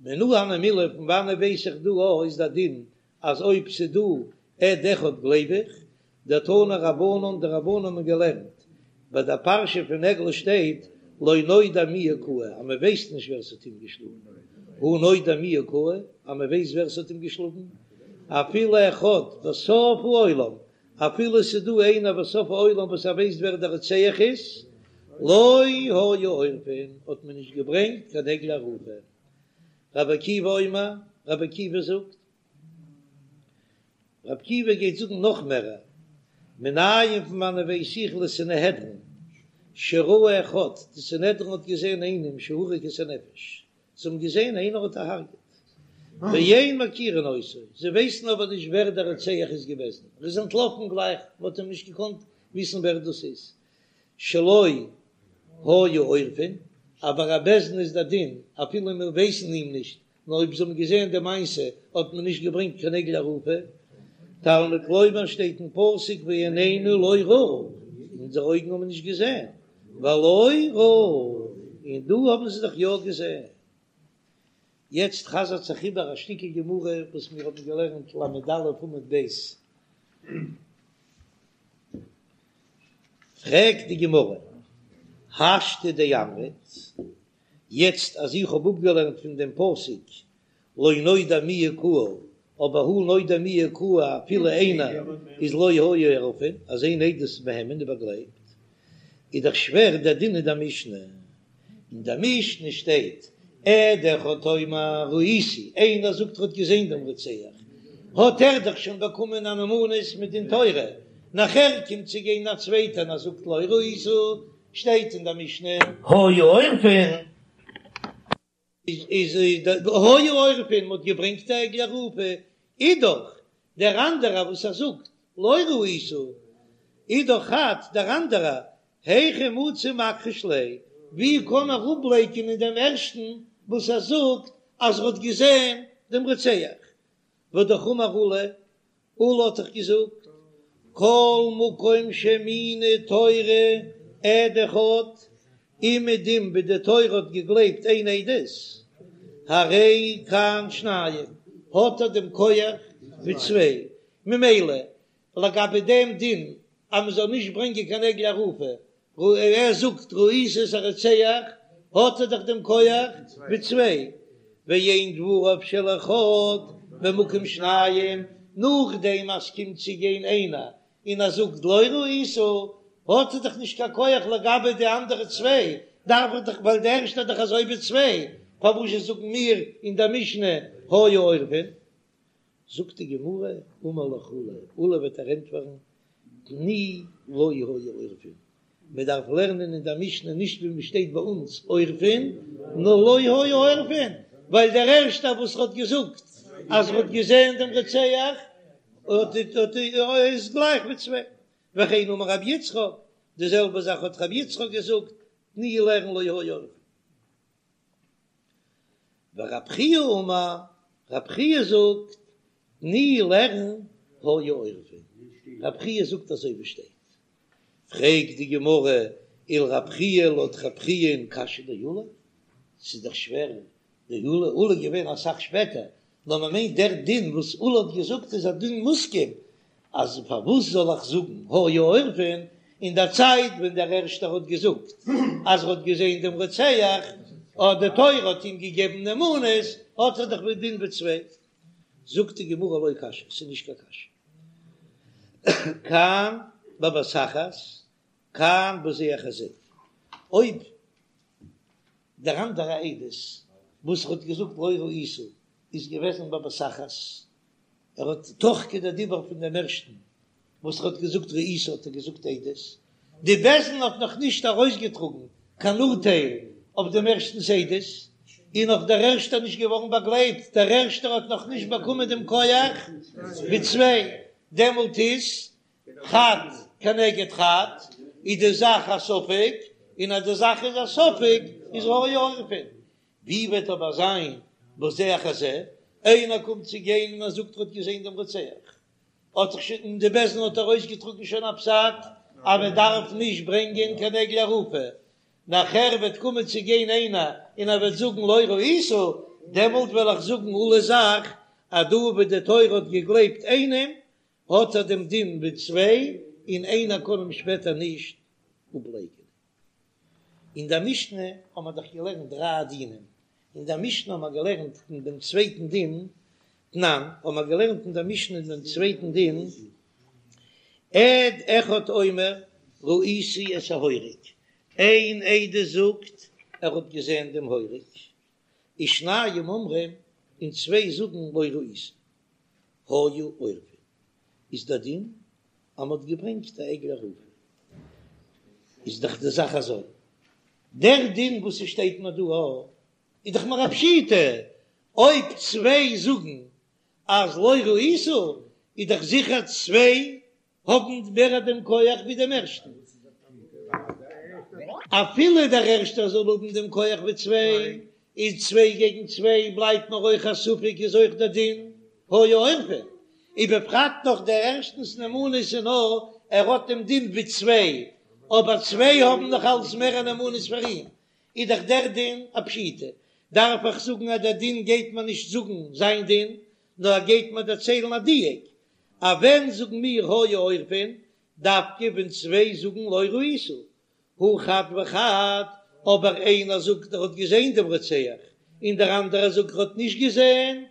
מנא הני מילי פון וואנעט ווייס איך דא א איז דער דין אז אויב ס'דא עד אחד גלייב איך, דתנו רבנן די רבנן האבן געלערנט ביי דער פרשה פון עגלה שטייט לא נודע מי הכהו אז מען ווייסט נישט ווער ס'האט אים געשלאגן, הא נודע מי הכהו אז מען ווייסט ווער ס'האט אים געשלאגן, אפילו אחד בסוף העולם אפילו ס'איז דא איינער בסוף העולם וואס ער ווייסט ווער דער רוצח איז, לא היו עורפין, האט מען נישט געברענגט קיין עגלה ערופה. רבי עקיבא אומר, רבי עקיבא זאגט, רבי עקיבא גייט זאגן נאך מערער, מנין פון וואנען ווייס איך לסנהדרין, שראו אחד, די סנהדרין האט געזען איינעם שהרג את הנפש, זיי האבן געזען איינער האט דערהרגעט, ואין מכירין אותו, זיי ווייסן אבער נישט ווער דער רוצח איז געוועזן, ער איז אנטלאפן גלייך, מען האט אים נישט געקאנט וויסן ווער דאס איז, שלא היו עורפין, אבער א בית דין איז דער דין, אפילו מיר ווייסן אים נישט, נאר אויב זיי האבן געזען די מעשה האט מען נישט געברענגט קיין עגלה ערופה, תלמוד לומר שטייט אין פסוק ועינינו לא ראו, אונזערע אויגן האבן נישט געזען, והלא ראו, און דא האבן זיי דאך יא געזען. יעצט חזר'ט זיך איבער א שטיקל גמרא וואס מיר האבן געלערנט ל"א עמוד ב'. פרעגט די גמרא, השתא דאמרת, יעצט אז איך האב אפגעלערנט פון דעם פסוק לא נודע מי הכהו, אבער הא נודע מי הכהו אפילו איינער איז לא היו עורפין, אז איין עדות איז מהימן איז באגלייבט, איז דאך שווער דער דין אין דער משנה, אין דער משנה שטייט עד אחד אומר ראיתי, איינער זאגט ער האט געזען דעם רוצח, האט ער דאך שוין באקומען א נאמנות מדין תורה, נאכער קומט צו גיין א צווייטער און ער זאגט לא ראית, שטייט אין דער משנה. היו עורפין. איז היו עורפין, מ'האט געברענגט א עגלה ערופה, איז דאך דער אנדערער וואס ער זאגט לא ראית, איז דאך חד דער אנדערער, היכי מצי מכחיש ליה, ווי קען ער אפלייקענען דעם ערשטן וואס ער זאגט אז ער האט געזען דעם רוצח, והאמר עולא, עולא האט דאך געזאגט, כל מקום שהאמינה תורה עד אחד, אומעדום ווי די תורה האט געגלייבט איין עדות, הרי כאן שניים, האט ער דעם כח ווי צוויי, ממילא לגבי דעם דין אז מען זאל נישט ברענגען קיין עגלה ערופה, ער זאגט ראיתי את הרוצח, האט ער דאך דעם כח ווי צוויי, ואין דבריו של אחד במקום שניים, נאכדעם אז ס'קומט צו גיין איינער און ער זאגט לא ראית, האט ער דאך נישט קיין כח לגבי די אנדערע צוויי, דארף איך דאך ווייל די ערשטע איז דאך אזוי ווי צוויי, פארוואזשע זאגן מיר אין דער משנה היו עורפין? זאגט די גמרא, אמר לך עולא, עולא וועט דיר ענטפערן, תני לא היו עורפין, מען דארף לערנען אין דער משנה נישט ווי מען שטייט ביי אונז עורפין, נאר לא היו עורפין, ווייל דער ערשטער וואס האט געזאגט אז ער האט געזען דעם רוצח איז גלייך ווי צוויי, וכן אמר רבי יצחק, די זעלבע זאך האט רבי יצחק געזאגט, תני לערן לא היו עורפין. ורב חייא אמר, רב חייא זאגט, תני לערן היו עורפין, רב חייא זאגט אזוי ווי שטייט. פרעגט די גמרא, ולרב חייא לויט רב חייא קשיא דעולא, ס'איז דאך שווער, דעולא, עולא איז געווען אסאך שפעטער, נאר מען מיינט דער דין וואס עולא האט געזאגט איז א דין מוסכם, אז פארוואס זאל איך זאגן היו עורפין אין דער צייט ווען דער ערשטער האט געזאגט אז ער האט געזען דעם רוצח, און די תורה האט אים געגעבן נאמנות, האט ער דאך א דין ווי צוויי. זאגט די גמרא לא קשיא, ס'איז נישט קיין קשיא. כאן בבת אחת, כאן בזה אחר זה. אויב דער אנדערע עדות וואס האט געזאגט לא ראית איז געוועזן בבת אחת, ער האט תוך כדי דיבור פון דעם ערשטן וואס ער האט געזאגט ראית האט ער געזאגט עדות, די בית דין האט נאך נישט ארויסגעטראגן קיין אורטייל אויף דעם ערשטנס עדות, און נאך דער ערשטער נישט געווארן באגלייבט, דער ערשטער האט נאך נישט באקומען דעם כח ווי צוויי, דעמאלט איז חד. כנגד חד, איז די זאך א ספק, און אז די זאך איז א ספק איז היו עורפין. ווי וועט אבער זיין בזה אחר זה, איינער קומט צו גיין און ער זאגט ער האט געזען דעם רוצח, האט זיך שוין און די בית דין האט ארויסגעטראגן שוין א פסק אז מען דארף נישט ברענגען קיין עגלה ערופה, נאכער וועט קומען צו גיין איינער און ער וועט זאגן לא ראית, דעמאלט וועל איך זאגן עולא'ס זאך אז דא וואו די תורה האט געגלייבט איינעם האט ער דעם דין ווי צוויי און איינער קען אים שפעטער נישט אפלייקענען. אין דער משנה האבן מיר דאך געלערנט דריי דינים, אין דער משנה האבן מיר געלערנט אין דעם צווייטן דין, תנן, האבן מיר געלערנט אין דער משנה אין דעם צווייטן דין, עד אחד אומר ראיתי את ההורג, איין עדות זאגט ער האט געזען דעם הורג, ושניים אומרים, און צוויי זאגן לא ראיתי, היו עורפין, איז דער דין אז מ'האט געברענגט א עגלה ערופה, איז דאך די זאך אזוי, דער דין וואס ס'שטייט מיר דא א, איז דאך מיר א פשיטא, אויב צוויי זאגן אז לא ראית, איז דאך זיכער צוויי האבן מער דעם כח ווי דעם ערשטן, אפילו דער ערשטער זאל האבן דעם כח ווי צוויי, איז צוויי געגן צוויי בלייבט נאר אויך א ספק איז אויך דער דין היו עורפין, ובפרט נאך דער ערשטנס נאמנות איז נאר ער האט דעם דין ווי צוויי, אבער צוויי האבן נאך אלס מער א נאמנות פאר אים, איז דאך דער דין א פשיטא, דארף איך זאגן אז דער דין גייט מיר נישט זאגן זיין דין, נאר ער גייט מיר דערציילן א דיוק, אז ווען זאגן מיר היו עורפין, דווקא ווען צוויי זאגן לא ראית, הא חד וחד, אבער איינער זאגט ער האט געזען דעם רוצח, און דער אנדערער זאגט ער האט נישט געזען,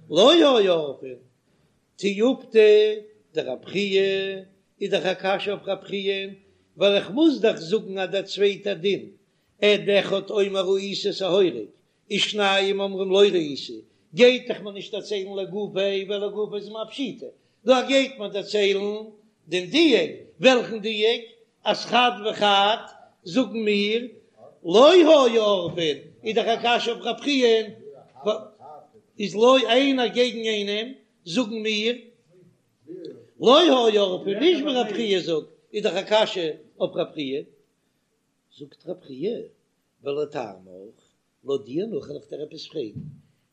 לא היו עורפין. תיובתא דרב חייא איז דאך א קשיא אויף רב חייא, ווייל איך מוז דאך זאגן אז דער צווייטער דין, עד אחד אומר ראיתי את ההורג, ושניים אומרים לא ראיתי, גייט דאך מיר נישט דערציילן לגופיה, ווייל לגופיה איז מיר א פשיטא, דא גייט מען דערציילן דעם דיוק, וועלכן דיוק? אז חד וחד זאגן מיר לא היו עורפין, איז דאך א קשיא אויף רב חייא, איז לא איינער געגן איינעם זאגן מיר לא היו עורפין, נישט ווי רב חייא זאגט, איז דאך א קשיא אויף רב חייא, זאגט רב חייא ולטעמיך לויט דיר נאך וועל איך דיר עפעס פרעגן,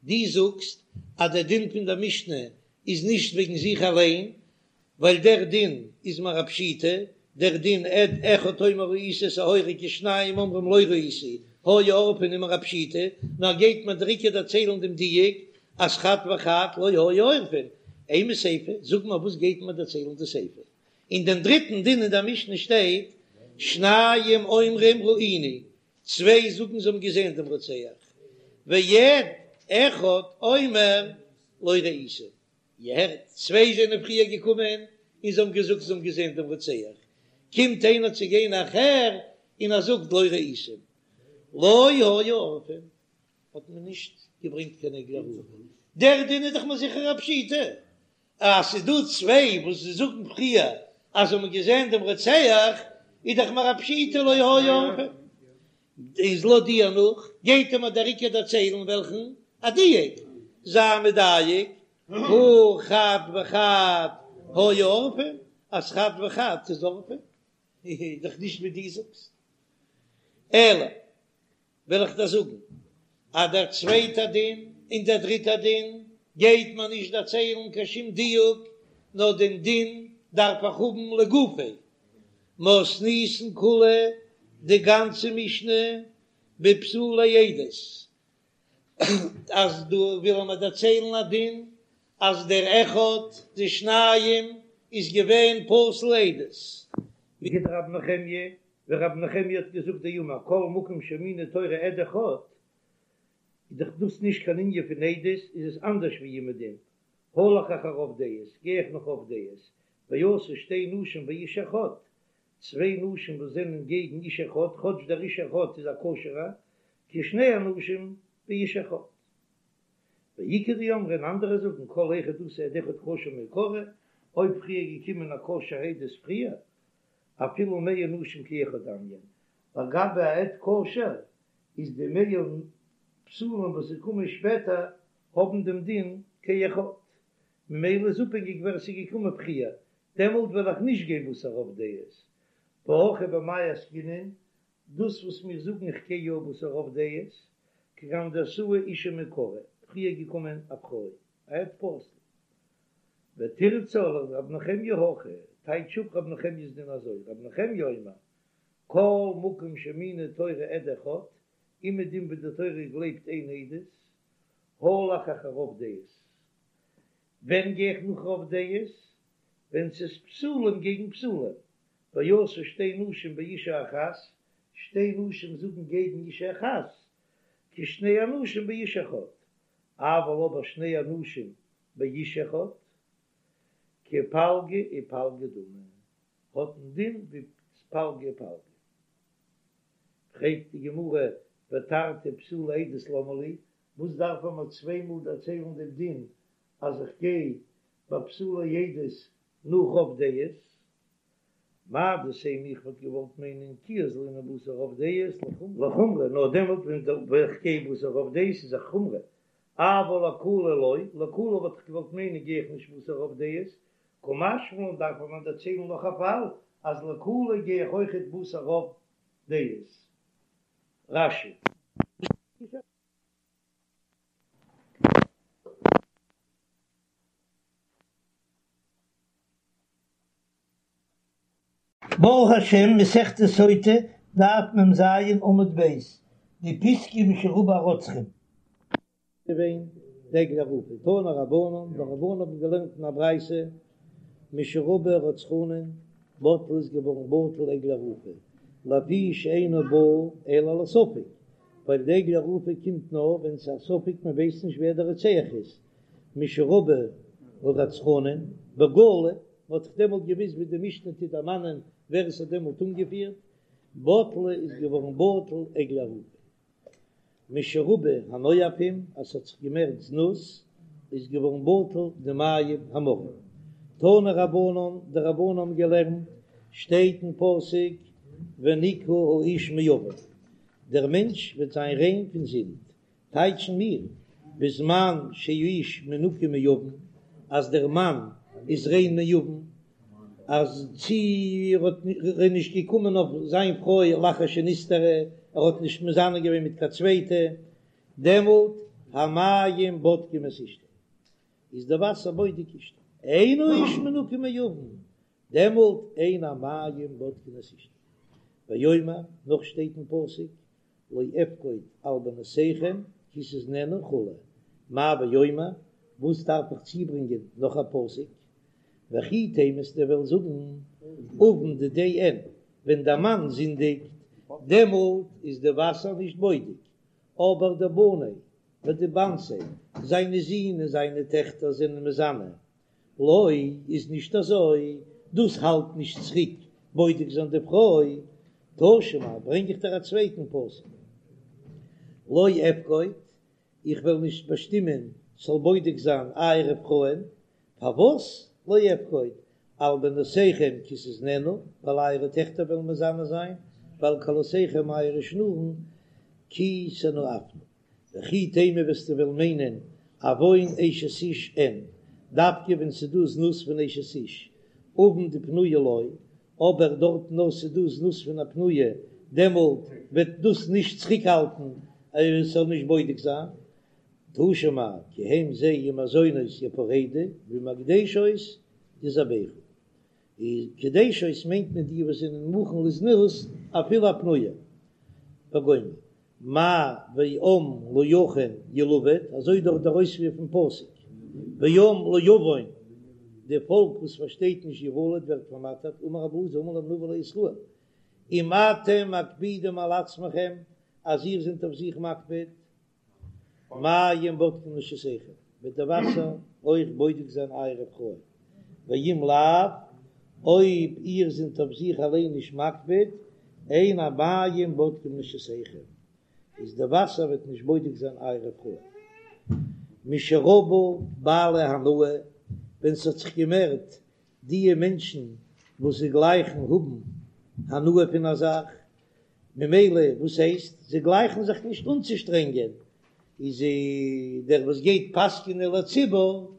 דו זאגסט אז דער דין פון דער משנה איז נישט וועגן זיך אליין, ווייל דער דין איז מיר א פשיטא, דער דין עד אחד אומר ראיתי את ההורג ושניים אומרים לא ראיתי, היו עורפין איז מיר א פשיטא, נאר גייט מיר דער עיקר דערציילן דעם דיוק אז חד וחד לא היו עורפין, אימא סיפא, זאג מיר וואס גייט מיר דערציילן די סיפא? אין דעם דריטן דין אין דער משנה שטייט שניים אומרים ראינו, צוויי זאגן זיי האבן געזען דעם רוצח, ועד אחד אומר לא ראיתי, איר הערט, צוויי זענען פריער געקומען און זיי האבן געזאגט זיי האבן געזען דעם רוצח, קומט איינער צו גיין נאכער און ער זאגט לא ראיתי, לא היו עורפין, האט מען נישט געברענגט קיין עגלה ערופה, דער דין איז דאך מיר זיכער א פשיטא, אז ס'איז דא צוויי וואס זיי זאגן פריער אז זיי האבן געזען דעם רוצח, איז דאך מיר א פשיטא לא היו עורפין. איז לויט דיר נאך, גייט ער מיר דער עיקר דערציילן וועלכן א דיוק, זיי מדייק, הא חד וחד היו עורפין, אז חד וחד איז עורפין, איז דאך נישט ווי דו זאגסט. אלא וועל איך דיר זאגן אז דער צווייטער דין און דער דריטער דין גייט מיר נישט דערציילן קיין שום דיוק, נאר דעם דין דארף איך האבן לגופיה. מתניתין כולה, די גאנצע משנה בפסולי עדות, אז דא וויל ער מיר דערציילן א דין אז דער אחד די שניים איז געווען פסול עדות. כדרב נחמיה ווי רבי נחמיה האט געזאגט דאמר כל מקום שהאמינה תורה עד אחד, איז דאך דאס נישט קיין ענין פון עדות, איז עס אנדערש ווי אומעדום, הלך אחר רוב דעות, גיי איך נאך רוב דעות, ואתו שתי נשים באיש אחד, צוויי נשים וואס זענען געגן איש אחד, כאטש דער איש אחד איז א כשר'ער, כשני אנשים באיש אחד. ואיכא דאמרי און אנדערע זאגן כל היכא דאתא עד אחד כשר מעיקרא, אויב פריער געקומען א כשר עדות פריער, אפילו מאה נשים כאחד דמיין, לגבי א עד כשר איז די מאה פסולים וואס זיי קומען שפעטער האבן דעם דין כאחד, ממילא איז אפהענגיק ווער עס איז געקומען פריער. דעמאלט וועל איך נישט גיין בתר רוב דעות, והכא במאי עסקינן, דאס וואס מיר זאגן איך גיי יא בתר רוב דעות, כגון דאתאי אשה מעיקרא, פריער געקומען א פרוי, א עד פסול. ותרצה לרב נחמיה הכי, טייטש אפ רב נחמיה'ס דין אזוי, רב נחמיה אומר, כל מקום שהאמינה תורה עד אחד, אומעדום וואו די תורה גלייבט איין עדות, הלך אחר רוב דעות. ווען גיי איך נאך רוב דעות? ווען ס'איז פסולים געגן פסולים, ואתו שתי נשים באשה אחת, שתי נשים זאגן געגן אשה אחת, כשני אנשים באיש אחד, אבל אבער שני אנשים באיש אחד, כפלגא ופלגא דמי, האט א דין ווי פלגא ופלגא. פרעגט די גמרא, ותרתי פסולי עדות למה לי, וואס דארף מען מיר צוויי מאל דערציילן דעם דין אז איך גיי ביי פסולי עדות נאך רוב דעות? מהו דתימא איך וואלט געוואלט מיינען כי אזלינן בתר רוב דעות לחומרא, נאר דעמאלט ווען איך גיי בתר רוב דעות איז א חומרא, אבל לקולא לא, לקולא וואלט איך געוואלט מיינען גיי איך נישט בתר רוב דעות, קא משמע לן דארף מען דערציילן נאך א פאל אז לקולא גיי איך אויכעט בתר רוב דעות. רש"י. ברוך השם, מסכת סוטה, דף מ"ז עמוד ב', די פיסקא משרבו הרוצחים. געווען די עגלה ערופה, תנו רבנן, די רבנן האבן געלערנט אין א ברייתא, משרבו הרצחנין, בטלה איז געווארן בטל עגלה ערופה, לפי שאינה באה אלא על הספק, ווייל די עגלה ערופה קומט נאר ווען ס'איז א ספק מען ווייסט נישט ווער דער רוצח איז, משרבו הרצחנין, בגלוי, מען האט דאך דעמאלט געוויסט ווי די משנה טוט דערמאנען ווער עס האט דעמאלט אנגעפירט, בטלה איז געווארן בטל עגלה ערופה. משרבו הנואפים, אז ס'האט זיך געמערט זנות, איז געווארן בטל די מים המרים. תנו רבנן, די רבנן האבן געלערנט, שטייט אין פסוק ונקה האיש מעון, דער מענטש וועט זיין ריין פון זינד, טייטשן מיר, בזמן שהאיש מנוקה מעון, אז דער מאן איז ריין מעון, אז צי ער האט ער איז נישט געקומען אויף זיין פרוי לאחר שנסתרה, ער האט נישט מזנה געווען מיט קיין צווייטע, דעמאלט המים בודקים את אשתו, איז די וואסער בודק אשתו, אין האיש מנוקה מעון, דעמאלט אין המים בודקין את אשתו. ואומר, נאך שטייט אין פסוק, לא אפקוד על בנותיכם כי תזנינה וכו', מאי ואומר, וואס דארף איך צוברענגען נאך א פסוק? וכי תימא וועסטו וועלן זאגן עון דידיה אין, ווען דער מאן זינדיגט דעמאלט איז די וואסער נישט בודק, אבער דבניה ודבנתיה, זיינע זין און זיינע טעכטער זענען מזנה, לא, איז נישט אזוי, דאס האלט נישט צוריק בודק זיין די פרוי, תא שמע, ברענג איך דיר א צווייטן פסוק, לא אפקוד, איך וועל נישט באשטימען ס'זאל בודק זיין אייערע פרויען, פארוואס לא אפקוד, על בנותיכם כי תזנינה, ווייל אייערע טעכטער וועלן מזנה זיין, ועל כלותיכם אייערע שנורן כי תנאפנה. וכי תימא וועסטו וועלן מיינען עון אשת איש אין, דווקא ווען ס'דא זנות פון אשת איש, עון דפנויה לא, אבער דארט נאר ס'דא זנות פון א פנויה, דעמאלט וועט דאס נישט צוריקהאלטן אז עס זאל נישט בודק זיין. תא שמע, כי הם זיי עם הזונות יפרדו ועם הקדשות יזבחו. די קדשות מיינט מען די וואס זענען מוכן לזנות אפילו א פנויה. וגומר. מאי ועם לא יכין ילבט, אזוי דאך דער אויספיר פון פסוק, ועם לא יבין, די פאלק וואס פארשטייט נישט יבלט ווערט פארמאטערט, אמר רבי אלעזר אמר להם נביא לישראל, אם אתם מקפידים על עצמכם, אז איר זענט אויף זיך מקפיד, מים בודקים נשותיכם, וועט די וואסער אויך בודק זיין אייערע פרויען, ואם לאו, אויב איר זענט אויף זיך אליין נישט מקפיד, אין המים בודקים נשותיכם, איז די וואסער וועט נישט בודק זיין אייערע פרויען. משרבו בעלי הנאה, ווען ס'האט זיך געמערט דיע מענטשן וואס זיי גלייכן האבן הנאה פון א זאך, ממילא וואס הייסט זיי גלייכן זיך נישט אנצושטרענגען, איז דער וואס גייט פסק'נען לציבור.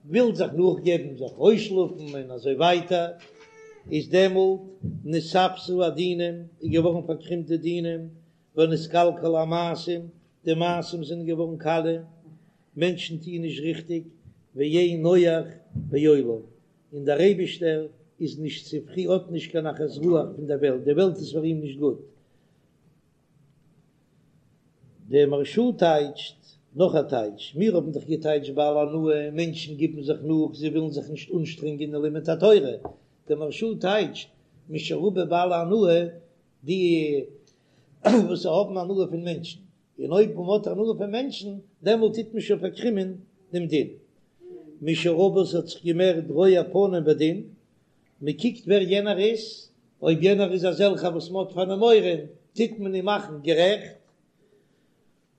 וויל זיך נאכגעבן, זיך אויסשלאפן און אזוי ווייטער, איז דעמאלט נתעוותו הדינים, איז געווארן פארקרימט די דינים, ונתקלקלו המעשים, די מעשים זענען געווארן קאליע, מענטשן טוען נישט ריכטיג, ואין נוח בעולם, און דער אייבישטער איז נישט צופרי האט נישט קיין נחת רוח פון דער וועלט, די וועלט איז פאר אים נישט גוט. דער מהרש"א טייטשט נאך א טייטש, מיר האבן דאך געטייטשט בעלי הנאה, מענטשן גיבן זיך נאך, זיי ווילן זיך נישט אנשטרענגען אין לימוד התורה, דער מהרש"א טייטשט משרבו בעלי הנאה, די וואס האבן הנאה פון מענטשן, און אויב מען האט הנאה פון מענטשן, דעמאלט טוט מען שוין פארקרימען דעם דין. משרבו ס'האט זיך געמערט רואי פנים בדין, מען קוקט ווער יענער איז, אויב יענער איז אזעלכער וואס מען האט פאר אים מורא, טוט מען אים מאכן גערעכט.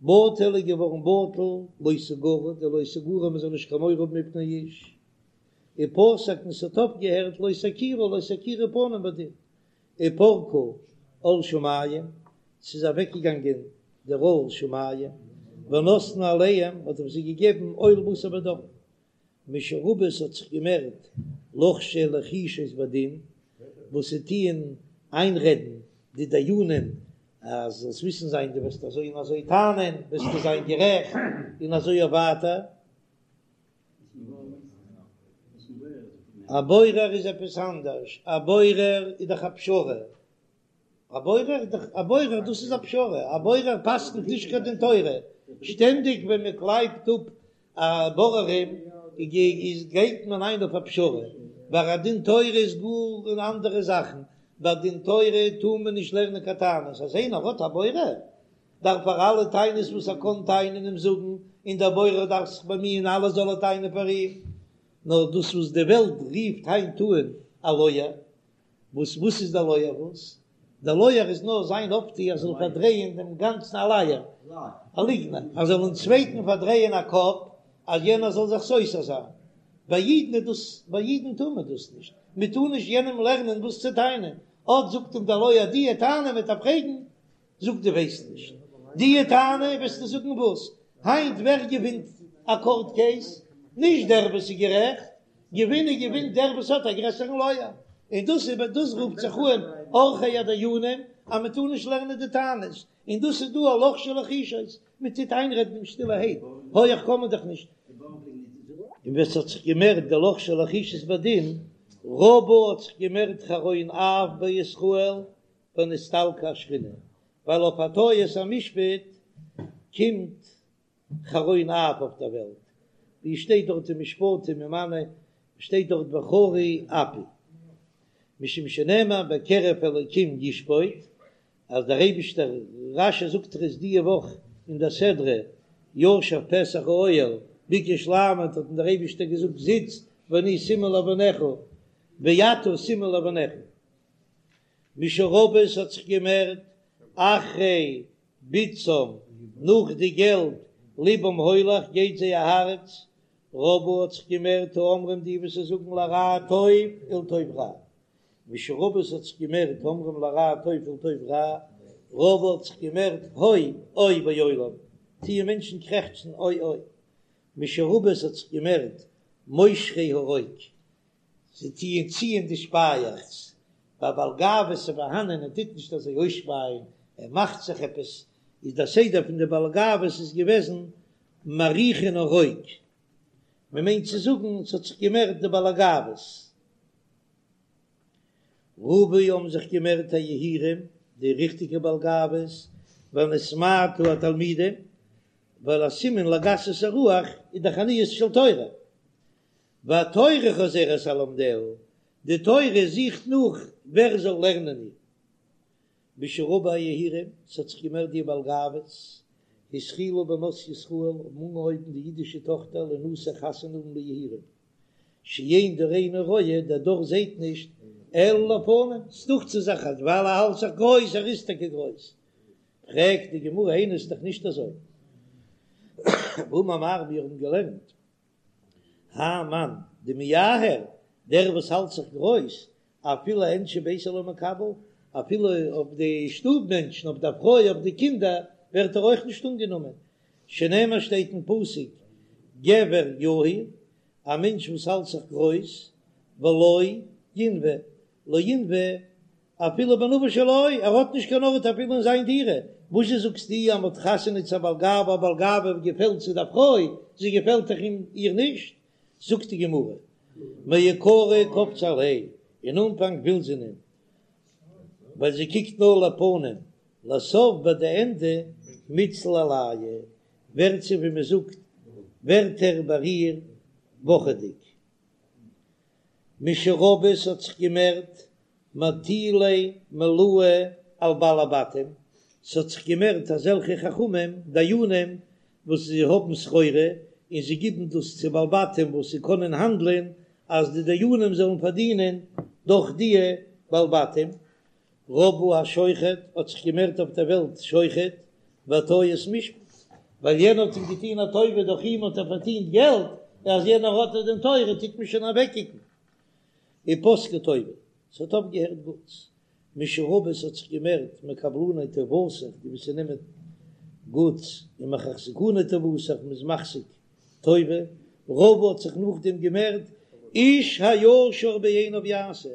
בטל איז געווארן בטל, לא תגורו, די לא תגורו מען זאל נישט קיין מורא האבן מפני איש. ופסק און ס'האט אויפגעהערט לא תכירו, לא תכירו פנים בדין. ופרקו עול שמים, ס'איז אוועקגעגאנגען דער עול שמים, ונתנו עליהם, מ'האט אויף זיי געגעבן עול בשר ודם. משרבו ס'האט זיך געמערט לוחשי לחישות בדין, וואס זיי טוען איינרעדן די דיינים אז זאלסט וויסן זיין דו וועסט אזוי און אזוי טענה'ן וועסטו זיין גערעכט, און אזוי אויף ווייטער. א בורר איז עפעס אנדערש, א בורר איז דאך א פשרה, א בורר איז דאך א בורר דאס איז א פשרה, א בורר פסק'נט נישט קיין דין תורה, שטענדיג ווען מען קלייבט אפ א בוררים איז גייט מען איין אויף א פשרה, ביי א דין תורה איז גאר אן אנדערע זאכן, ביי דין תורה טאר מען נישט לערנען קיין טענות, אז איינער האט א בורר דארף ער אלע טענות וואס ער קען טענה'ן אים זאגן, און דער בורר דארף זיך באמיען אלעס זאל ער טענה'ן פאר אים, נאר דאס וואס די וועלט רופט היינט אן א לויער, וואס וואס איז דער לויער וואס? דער לויער איז נאר זיין אויפטו ער זאל פארדרייען דעם גאנצן א לייער, א ליגנער, ער זאל דעם צווייטן פארדרייען א קאפ אז יענער זאל זיך סותר זיין, ביי אידן איז דאס, ביי אידן טאר מען דאס נישט, מען טאר נישט יענעם לערנען וואס צו טענה'ן, אט זאגט אים דער לויער די טענה וועט ער פרעגן, זאג דו ווייסט נישט די טענה וועסטו זאגן וואס? היינט ווער געווינט א קאורט קעיס? נישט דער וואס איז גערעכט, געווינען געווינט דער וואס האט א גרעסערן לויער, און דאס איז דאס רופט זיך אן עורכי הדיינים אז מען טאר נישט לערנען די טענות, און דאס איז דא א לוחשי לחישות, מען טוט איינרעדן אים שטילערהייט, הויעך קען מען דאך נישט. און ווען ס'האט זיך געמערט די לוחשי לחישות בדין, רבה האט זיך געמערט חרון אף בישראל ונסתלקה השכינה, ווייל אויף א טעות המשפט קומט חרון אף אויף דער וועלט, ווי עס שטייט דארט אין משפטים אין מנה, שטייט דארט וחרי אפי, משום שנאמר בקרב אלקים ישפוט, אז דער אייבישטער, רש"י זאגט עס די וואך אין דער סדרה, ישב פתח האוהל, ביקש לעמוד האט אים דער אייבישטער געזאגט זיץ ואני סימן לבניך, ואתה סימן לבניך. משרבו ס'האט זיך געמערט אחרי בצעם נאך די געלט לבם הולך גייט זייער הארץ רבו האט זיך געמערט האומרים די וואס זאגן לרע טוב ולטוב רע משרבו ס'האט זיך געמערט האומרים לרע טוב ולטוב רע רבו האט זיך געמערט הוי אוי בעולם טוען מענטשן קרעכצן אוי אוי משרבו ס'האט זיך געמערט מושכי הרוק זיי טוען ציען די שפייעכץ, ביי בעל גאוות איז פארהאנען ער טוט נישט אזוי אויסשפייען, ער מאכט זיך עפעס, איז דער סדר פון די בעל גאוות איז געוועזן מריחין הרוק, מען מיינט צו זאגן ס'האט זיך געמערט די בעל גאוות. רבו האבן זיך געמערט היהירים, די ריכטיגע בעל גאוות, ונתמעטו התלמידים, ווייל א סימן לגסות הרוח איז דאך עניות של תורה, והתורה חוזרת על לומדיה, די תורה זוכט נאך ווער זאל לערנען איר. משרבו היהירים, ס'האט זיך געמערט די בעל גאוות, התחילו בנות ישראל האבן אנגעהויבן די אידישע טאכטער לינשא חתונה האבן ליהירים, שאין דורנו רואה, דער דור זעט נישט, אלא לפנים, ס'דוכט זיך זיך אז ווייל ער האלט זיך גרויס, ער איז טאקע גרויס. פרעגט די גמרא, איני ס'איז דאך נישט אזוי. והאמר מר מיר האבן געלערנט האי מאן דמיהר, דער וואס האלט זיך גרויס, אפילו אאינשי ביתיה לא מיקבל, אפילו אויף די שטוב מענטשן, אויף די פרוי, אויף די קינדער, ווערט ער אויך נישט אנגענומען, שנאמר שטייט אין פסוק, גבר יהיר, א מענטש וואס האלט זיך גרויס, ולא ינוה, לא ינוה אפילו בנוה שלו, ער האט נישט קיין ארט אפילו אין זיין דירה, וואזשע זאגסטו אז מ'האט חתונה צו א בעל גאווה, א בעל גאווה געפעלט צו דער פרוי, זי געפעלט דאך אים איר נישט, זאגט די גמרא, מעיקרא קפצה עליה, אין אנפאנג וויל זי אים, ווייל זי קוקט נאר לפנים, לסוף ביי די ענדע מיתזיל עלייהו, ווערט זי ווי מ'זאגט ווערט ער ביי איר וואכעדיג. משרבו ס'האט זיך געמערט מטילי מלואה על בעלי בתים, ס'האט זיך געמערט אזעלכע חכמים דיינים וואס זיי האבן סחורה און זיי גיבן דאס צו בעלי בתים וואס זיי קענען האנדלען אז די דיינים זאלן פארדינען דורך די בעלי בתים. רבו השוחד האט זיך געמערט אויף דער וועלט שוחד והטיית משפט, ווייל יענער האט אים געטון א טובה דורך אים האט ער פארדינט געלט, אז יענער האט א דין תורה טוט מען שוין אוועקקוקן. ופסקה טובה, ס'האט אויפגעהערט גוטס. משרבו ס'האט זיך געמערט מקבלני טובתך, די וואס נעמען גוטס, ומחזקני טובתך, מ'איז מחזיק טובה. רבו האט זיך נאכדעם געמערט איש הישר בעיניו יעשה,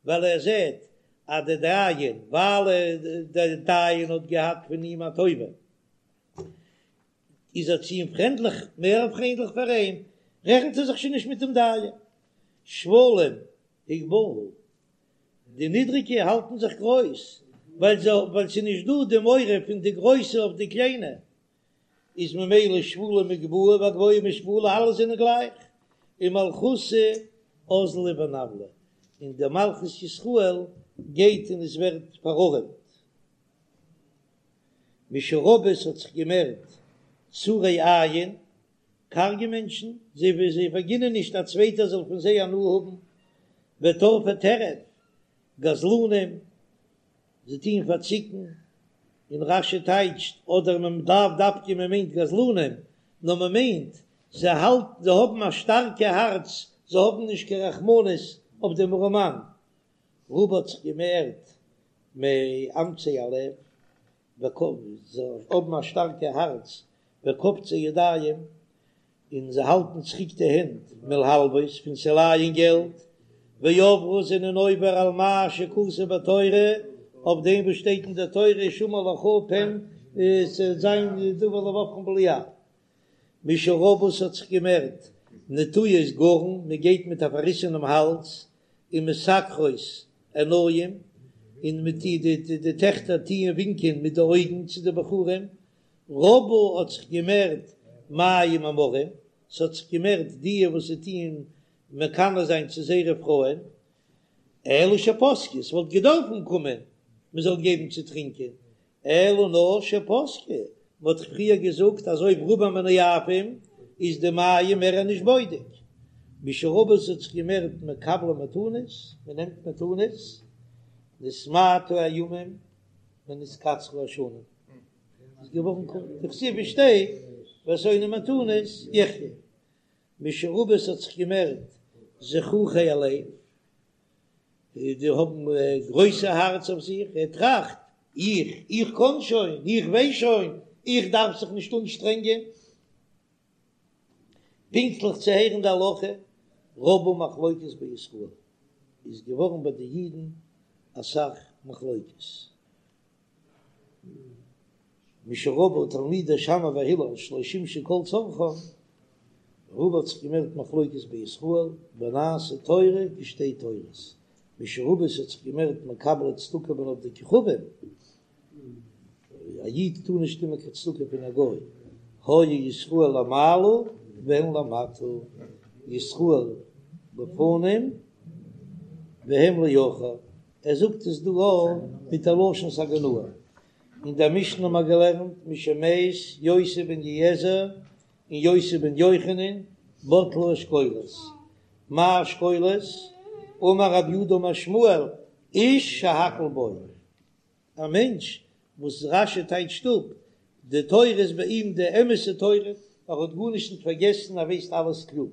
ווייל ער זעט אז דער דיין, ווייל דער דיין האט געהאט פון אים א טובה, איז ער צו אים פריינדליך, מער פריינדליך פאר אים, רעכנט ער זיך שוין נישט מיט דעם דיין. שפלים הגבהו, די נידריגע האלטן זיך גרויס, ווייל זיי, ווייל ס'איז נישט דא די מורא פון די גרויסע אויף די קליינע, איז ממילא שפלים הגבהו והגבוהים השפילו, אלע זענען גלייך, ומלכותא אזלא ונוולא, און די מלכות ישראל גייט און עס ווערט פארארעמט. משרבו ס'האט זיך געמערט צרי עין, קארגע מענטשן, זיי ווי זיי פארגינען נישט א צווייטער זאל פון זיי הנאה האבן, וטורפי טרף, גזלנים, זיי טוען פארציקן, און רש"י טייטשט, אדער מען לאו דווקא מען מיינט גזלנים, נאר מען מיינט זיי האלטן זיי האבן א שטארקע הארץ, זיי האבן נישט קיין רחמנות אויף דעם ארעמאן. רבו האט זיך געמערט מאמצי הלב, זיי האבן א שטארקע הארץ, וקופצי ידיים, און זיי האלטן צוריק די הענט מלהלוות פון צו לייען געלט, ועברו זענען עובר על מה שכתוב בתורה, אויף דעם וואס שטייט אין דער תורה השמר לך פן ס'וועט זיין דבר לבבכם בליעל. משרבו ס'האט זיך געמערט נטויות גרון, מען גייט מיט א פארריסענעם האלז, ומשקרות עיניים, און מיט די די טעכטער טוען ווינקען מיט די אויגן צו די בחורים, רבו האט זיך געמערט מים המרים, ס'האט זיך געמערט די וואס זיי טוען מקנא זיין צו זייערע פרויען, אלא שפסקו, ס'וואלט געדארפן קומען מ'זאל געבן צו טרינקען, אלא נאר שפסקו, מ'האט דאך פריער געזאגט אז אויב רובם מנאפים איז די מים מער נישט בודק, משרבו ס'האט זיך געמערט מקבלי מתנות, מ'נעמט מתנות, נתמעטו הימים ונתקצרו השנים. איז געווארן קורץ, דכתיב עס שטייט והשונא מתנות יחיה, משרבו ס'האט זיך געמערט זחוחי הלב, די האבן גרויסע הארץ אויף זיך, ער טראכט, איך, איך קען שוין, איך ווייס שוין, איך דארף זיך נישט אנשטרענגען פונקטליך צו הערן די הלכה, רבו מחלוקת בישראל, איז געווארן ביי די אידן אסאך מחלוקת. משרבו תלמידי שמאי והלל שלא שימשו כל צרכם, רבו האט זיך געמערט מחלוקת בישראל, ונעשה תורה כשתי תורות, משרבו ס'האט זיך געמערט מקבלי צדקה מן עובדי כוכבים, א איד טאר נישט נעמען קיין צדקה פון א גוי, היו ישראל למעלה והן למטה, ישראל לפנים והם לאחור. ער זאגט עס דא אויך מיט א לשון סגי נהור. אין דער משנה האבן מיר געלערנט משמת יוסי בן יועזר און יוסי בן יוחנן בטלו אשכולות. מאי אשכולות? אמר רב יהודה אמר שמואל איש שהכל בו, א מענטש וואס רש"י טייטשט אפ די תורה איז ביי אים די אמת'ע תורה, ער האט גארנישט נישט פארגעסן, ער ווייסט אלעס קלאר.